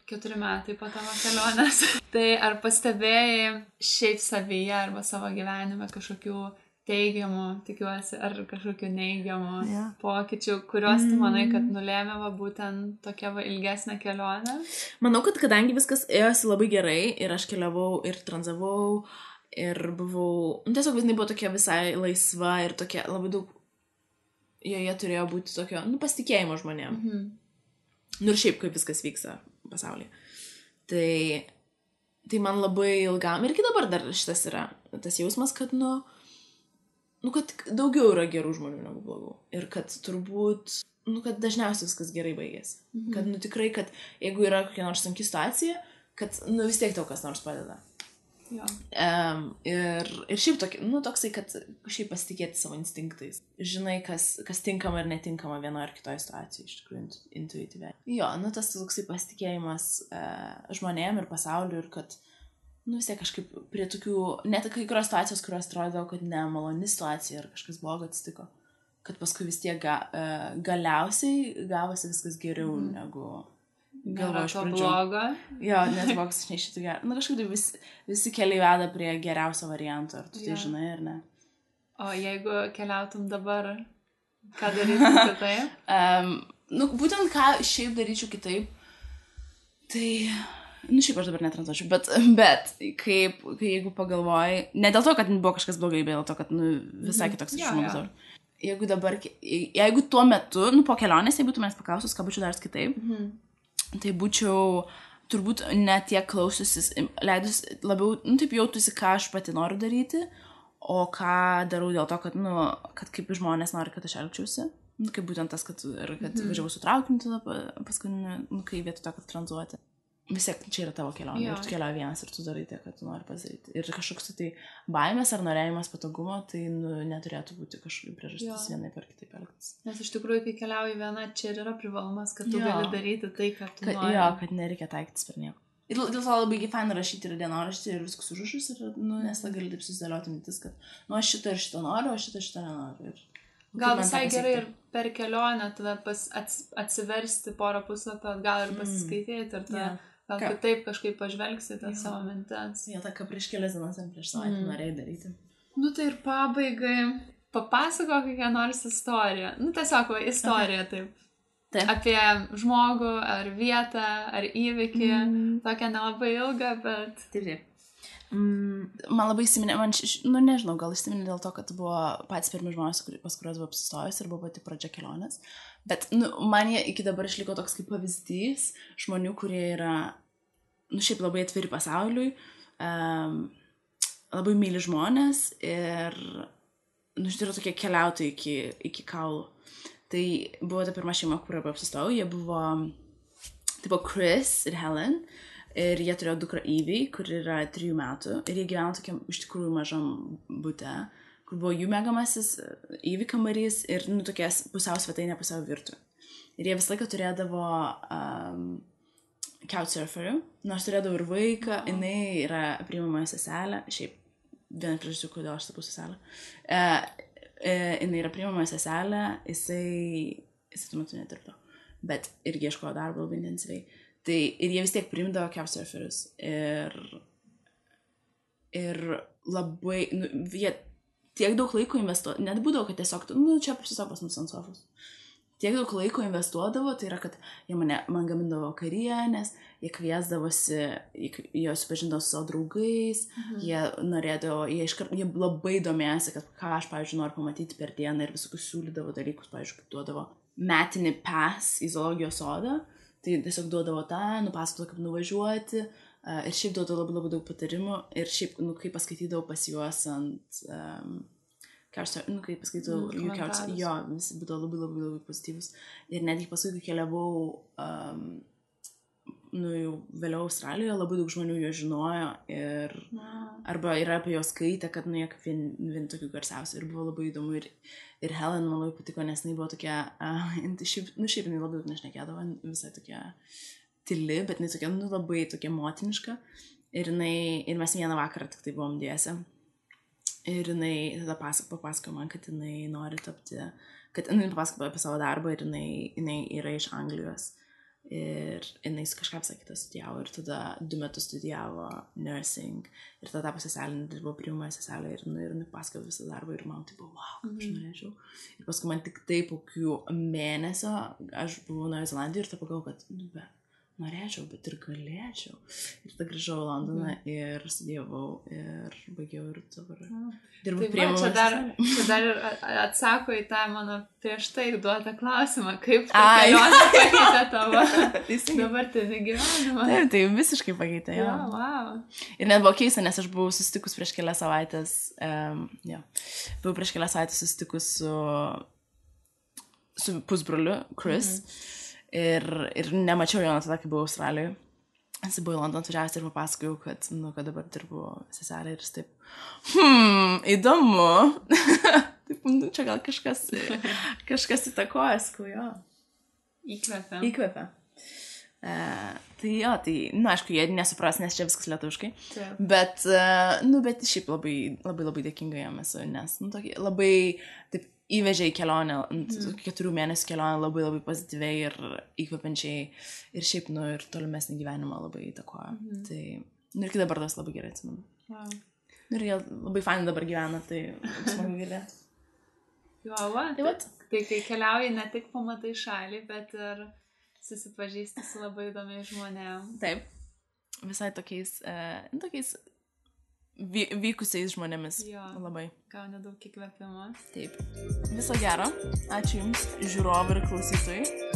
[SPEAKER 1] 4 metai po tavo kelionės. Tai ar pastebėjai šiaip savyje arba savo gyvenime kažkokių teigiamų, tikiuosi, ar kažkokių neigiamų pokyčių, kuriuos tu manai, kad nulėmė būtent tokia ilgesnė kelionė?
[SPEAKER 2] Manau, kad kadangi viskas ėjosi labai gerai ir aš keliavau ir tranzavau ir buvau, tiesiog visai buvo tokia visai laisva ir tokia labai daug, joje turėjo būti tokio, pasitikėjimo žmonėm. Ir šiaip kaip viskas vyksta pasaulyje. Tai man labai ilgam, ir iki dabar dar šitas yra tas jausmas, kad, kad daugiau yra gerų žmonių negu blogų. Ir kad turbūt, kad dažniausiai viskas gerai baigėsi. Kad, tikrai, kad jeigu yra kokia nors sunki situacija, kad, vis tiek tau kas nors padeda.
[SPEAKER 1] Jo.
[SPEAKER 2] Ir šiaip toksai, kad šiaip pasitikėti savo instinktais. Žinai, kas tinkama ir netinkama vienoje ar kitoje situacijoje, iš tikrųjų, intuityviai. Jo, tas toksai pasitikėjimas žmonėm ir pasauliu ir kad, vis tiek kažkaip prie tokių, net kai kurios situacijos, kurios atrodo, kad nemaloni situacija ar kažkas blogo atsitiko, kad paskui vis tiek galiausiai gavosi viskas geriau negu...
[SPEAKER 1] Galvoju iš pradžių. Blogo.
[SPEAKER 2] Jo, nes boks aš neišėtų gerą. Kažkaip tai visi keliai veda prie geriausio varianto, ar tu tai žinai, ar ne?
[SPEAKER 1] O jeigu keliautum dabar, ką darytum kitaip?
[SPEAKER 2] Būtent ką šiaip daryčiau kitaip, tai, šiaip aš dabar netranzuočiau, bet jeigu pagalvoji, ne dėl to, kad buvo kažkas blogai, bet dėl to, kad visai kitoks žmogus. Jeigu tuo metu, po kelionės, jeigu tu manęs paklausus, ką būčiau daręs kitaip, tai būčiau turbūt ne tiek klausiusis, leidus labiau, taip jautusi, ką aš pati noriu daryti, o ką darau dėl to, kad kaip žmonės nori, kad aš elgčiausi. Kaip būtent tas, kad važiavau su traukiniu tada paskui, kai vietoj to, kad tranzuoti. Vis tiek čia yra tavo kelionė, ir tu keliauji vienas ir tu darai tai, kad tu nori pasidaryti. Ir kažkoks tai baimės ar norėjimas patogumo, tai neturėtų būti kažkokia priežastis vienai per kitaip elgtis.
[SPEAKER 1] Nes iš tikrųjų, kai keliauji viena, čia yra privalumas, kad tu gali daryti tai, ką tu nori.
[SPEAKER 2] Jo, kad nereikia taikytis per nieko. Ir dėl to labai faina rašyti ir dienoraštį ir viskus užrašus, nes tą gali taip susidėlioti mintis, kad aš šitą ir šitą noriu, o šitą nenoriu.
[SPEAKER 1] Gal visai gerai ir per kelionę tada atsiversti porą puslapio, gal ir pasiskaityti ir tada gal kitaip kažkaip pažvelgsi tą savo mintis.
[SPEAKER 2] Jo, tą ką prieš kelias dienas prieš savaitę norėjai daryti.
[SPEAKER 1] Tai ir pabaigai papasako kokią nors istoriją. Tiesiog istorija taip. apie žmogų, ar vietą, ar įvykį. Tokia nelabai ilga, bet...
[SPEAKER 2] Taip. Man labai įsiminė, nežinau, gal įsiminė dėl to, kad buvo patys pirmi žmonės, pas kuriuos buvo apsistojus ir buvo pati pradžia kelionės. Bet man jie iki dabar išliko toks kaip pavyzdys žmonių, kurie yra, šiaip labai atviri pasauliui, labai myli žmonės ir, yra tokie keliautojai iki kaulų. Tai buvo ta pirma šeima, kurioje buvo apsistojau, jie buvo, tai buvo Chris ir Helen. Ir jie turėjo dukrą Evie, kur yra 3 metų. Ir jie gyveno tokiam iš tikrųjų mažam bute, kur buvo jų mėgamasis Evie kambarys ir tokias pusiau svetainė, pusiau virtuvė. Ir jie visą laiką turėdavo couchsurferių, nors turėdavo ir vaiką, jinai yra priimamoji seselė, šiaip viena priežasčių, kodėl aš tapau seselė. Jinai yra priimamoji seselė, jisai tuo metu nedirbdo, bet irgi ieškojo darbo labai intensyviai. Tai ir jie vis tiek priimdavo couchsurferius ir labai, jie tiek daug laiko investuodavo, net būdavo, kad tiesiog, čia tiesiog pas mus ant sofos. Tiek daug laiko investuodavo, tai yra, kad jie man gamindavo karienės, jie kviesdavosi, jie supažindavo su savo draugais, jie norėdavo, jie labai domėjosi, kad ką aš, pavyzdžiui, noriu pamatyti per dieną ir visokius siūlydavo dalykus, pavyzdžiui, kaip duodavo metinį pass į zoologijos sodą. Tai tiesiog duodavo tą, nupasakodavo, kaip nuvažiuoti ir šiaip duodavo labai, labai daug patarimų ir šiaip, kaip paskaitydavau pas juos ant kaip paskaitydavau jų couchsurferius, jo, visi būdavo labai, labai, labai pozityvus. Ir netgi paskui, kai keliavau jau vėliau Australijoje, labai daug žmonių jo žinojo ir arba yra apie jos skaitę, kad jie kaip vieni tokių garsiausių ir buvo labai įdomu ir Helen man labai patiko, nes jinai buvo tokia, šiaip jinai labai daug nešnekėdavo, visai tokia tyli, bet jinai tokia, labai tokia motiniška ir mes vieną vakarą tik tai buvom dviese ir jinai tada papasakojo man, kad jinai nori tapti, kad jinai papasakojo apie savo darbą ir jinai yra iš Anglijos. Ir jinai kažką visą kitą studijavo ir tada 2 metus studijavo nursing ir tada tapo seselė, dirbo priimamoje seselė ir jinai pasakojo visą darbą ir man tai buvo, wow, kaip aš norėčiau. Ir paskui man tik tai po kokių mėnesio aš buvau Naujoje Zelandijoje ir tada pagalvojau, kad norėčiau, bet ir galėčiau. Ir tada grįžau į Londoną ir studijavau ir baigiau ir dabar dirbu priimamoje seselė.
[SPEAKER 1] Čia dar ir atsako į tą mano prieš tai duotą klausimą, kaip ta kelionė pakeitė tavo dabartinį gyvenimą.
[SPEAKER 2] Taip, tai visiškai pakeitė, jo.
[SPEAKER 1] Wow.
[SPEAKER 2] Ir net buvo keista, nes aš buvau susitikus prieš kelias savaitės, buvau prieš kelias savaitės susitikus su pusbroliu, Chris. Ir nemačiau jo nuo tada, kai buvau Australijoje. Jis buvo į Londoną atvažiavęs ir papasakojau, kad dabar dirbu seselė ir jis taip, įdomu. Taip, čia gal kažkas įtakoja, sakau, jo. Įkvepia. Tai jo, aišku, jie nesupras, nes čia viskas lietuviškai. Bet šiaip labai, labai, labai dėkinga jam esu, nes labai taip įvežė į kelionę, 4 mėnesių kelionę labai, labai pozityviai ir įkvepiančiai ir šiaip, ir tolimesnį gyvenimą labai įtakoja. Tai, ir iki dabar tas labai gerai atsimenu.
[SPEAKER 1] Wow.
[SPEAKER 2] Ir jie labai fainai dabar gyvena, tai smagu girdėti.
[SPEAKER 1] Tai kai keliauji, ne tik pamatai šalį, bet ir susipažįsti su labai įdomiais žmonėm.
[SPEAKER 2] Taip, visai tokiais vykusiais žmonėmis.
[SPEAKER 1] Jo,
[SPEAKER 2] labai.
[SPEAKER 1] Gauni daug įkvėpimo.
[SPEAKER 2] Taip. Viso gero. Ačiū Jums, žiūrovai ir klausytojai.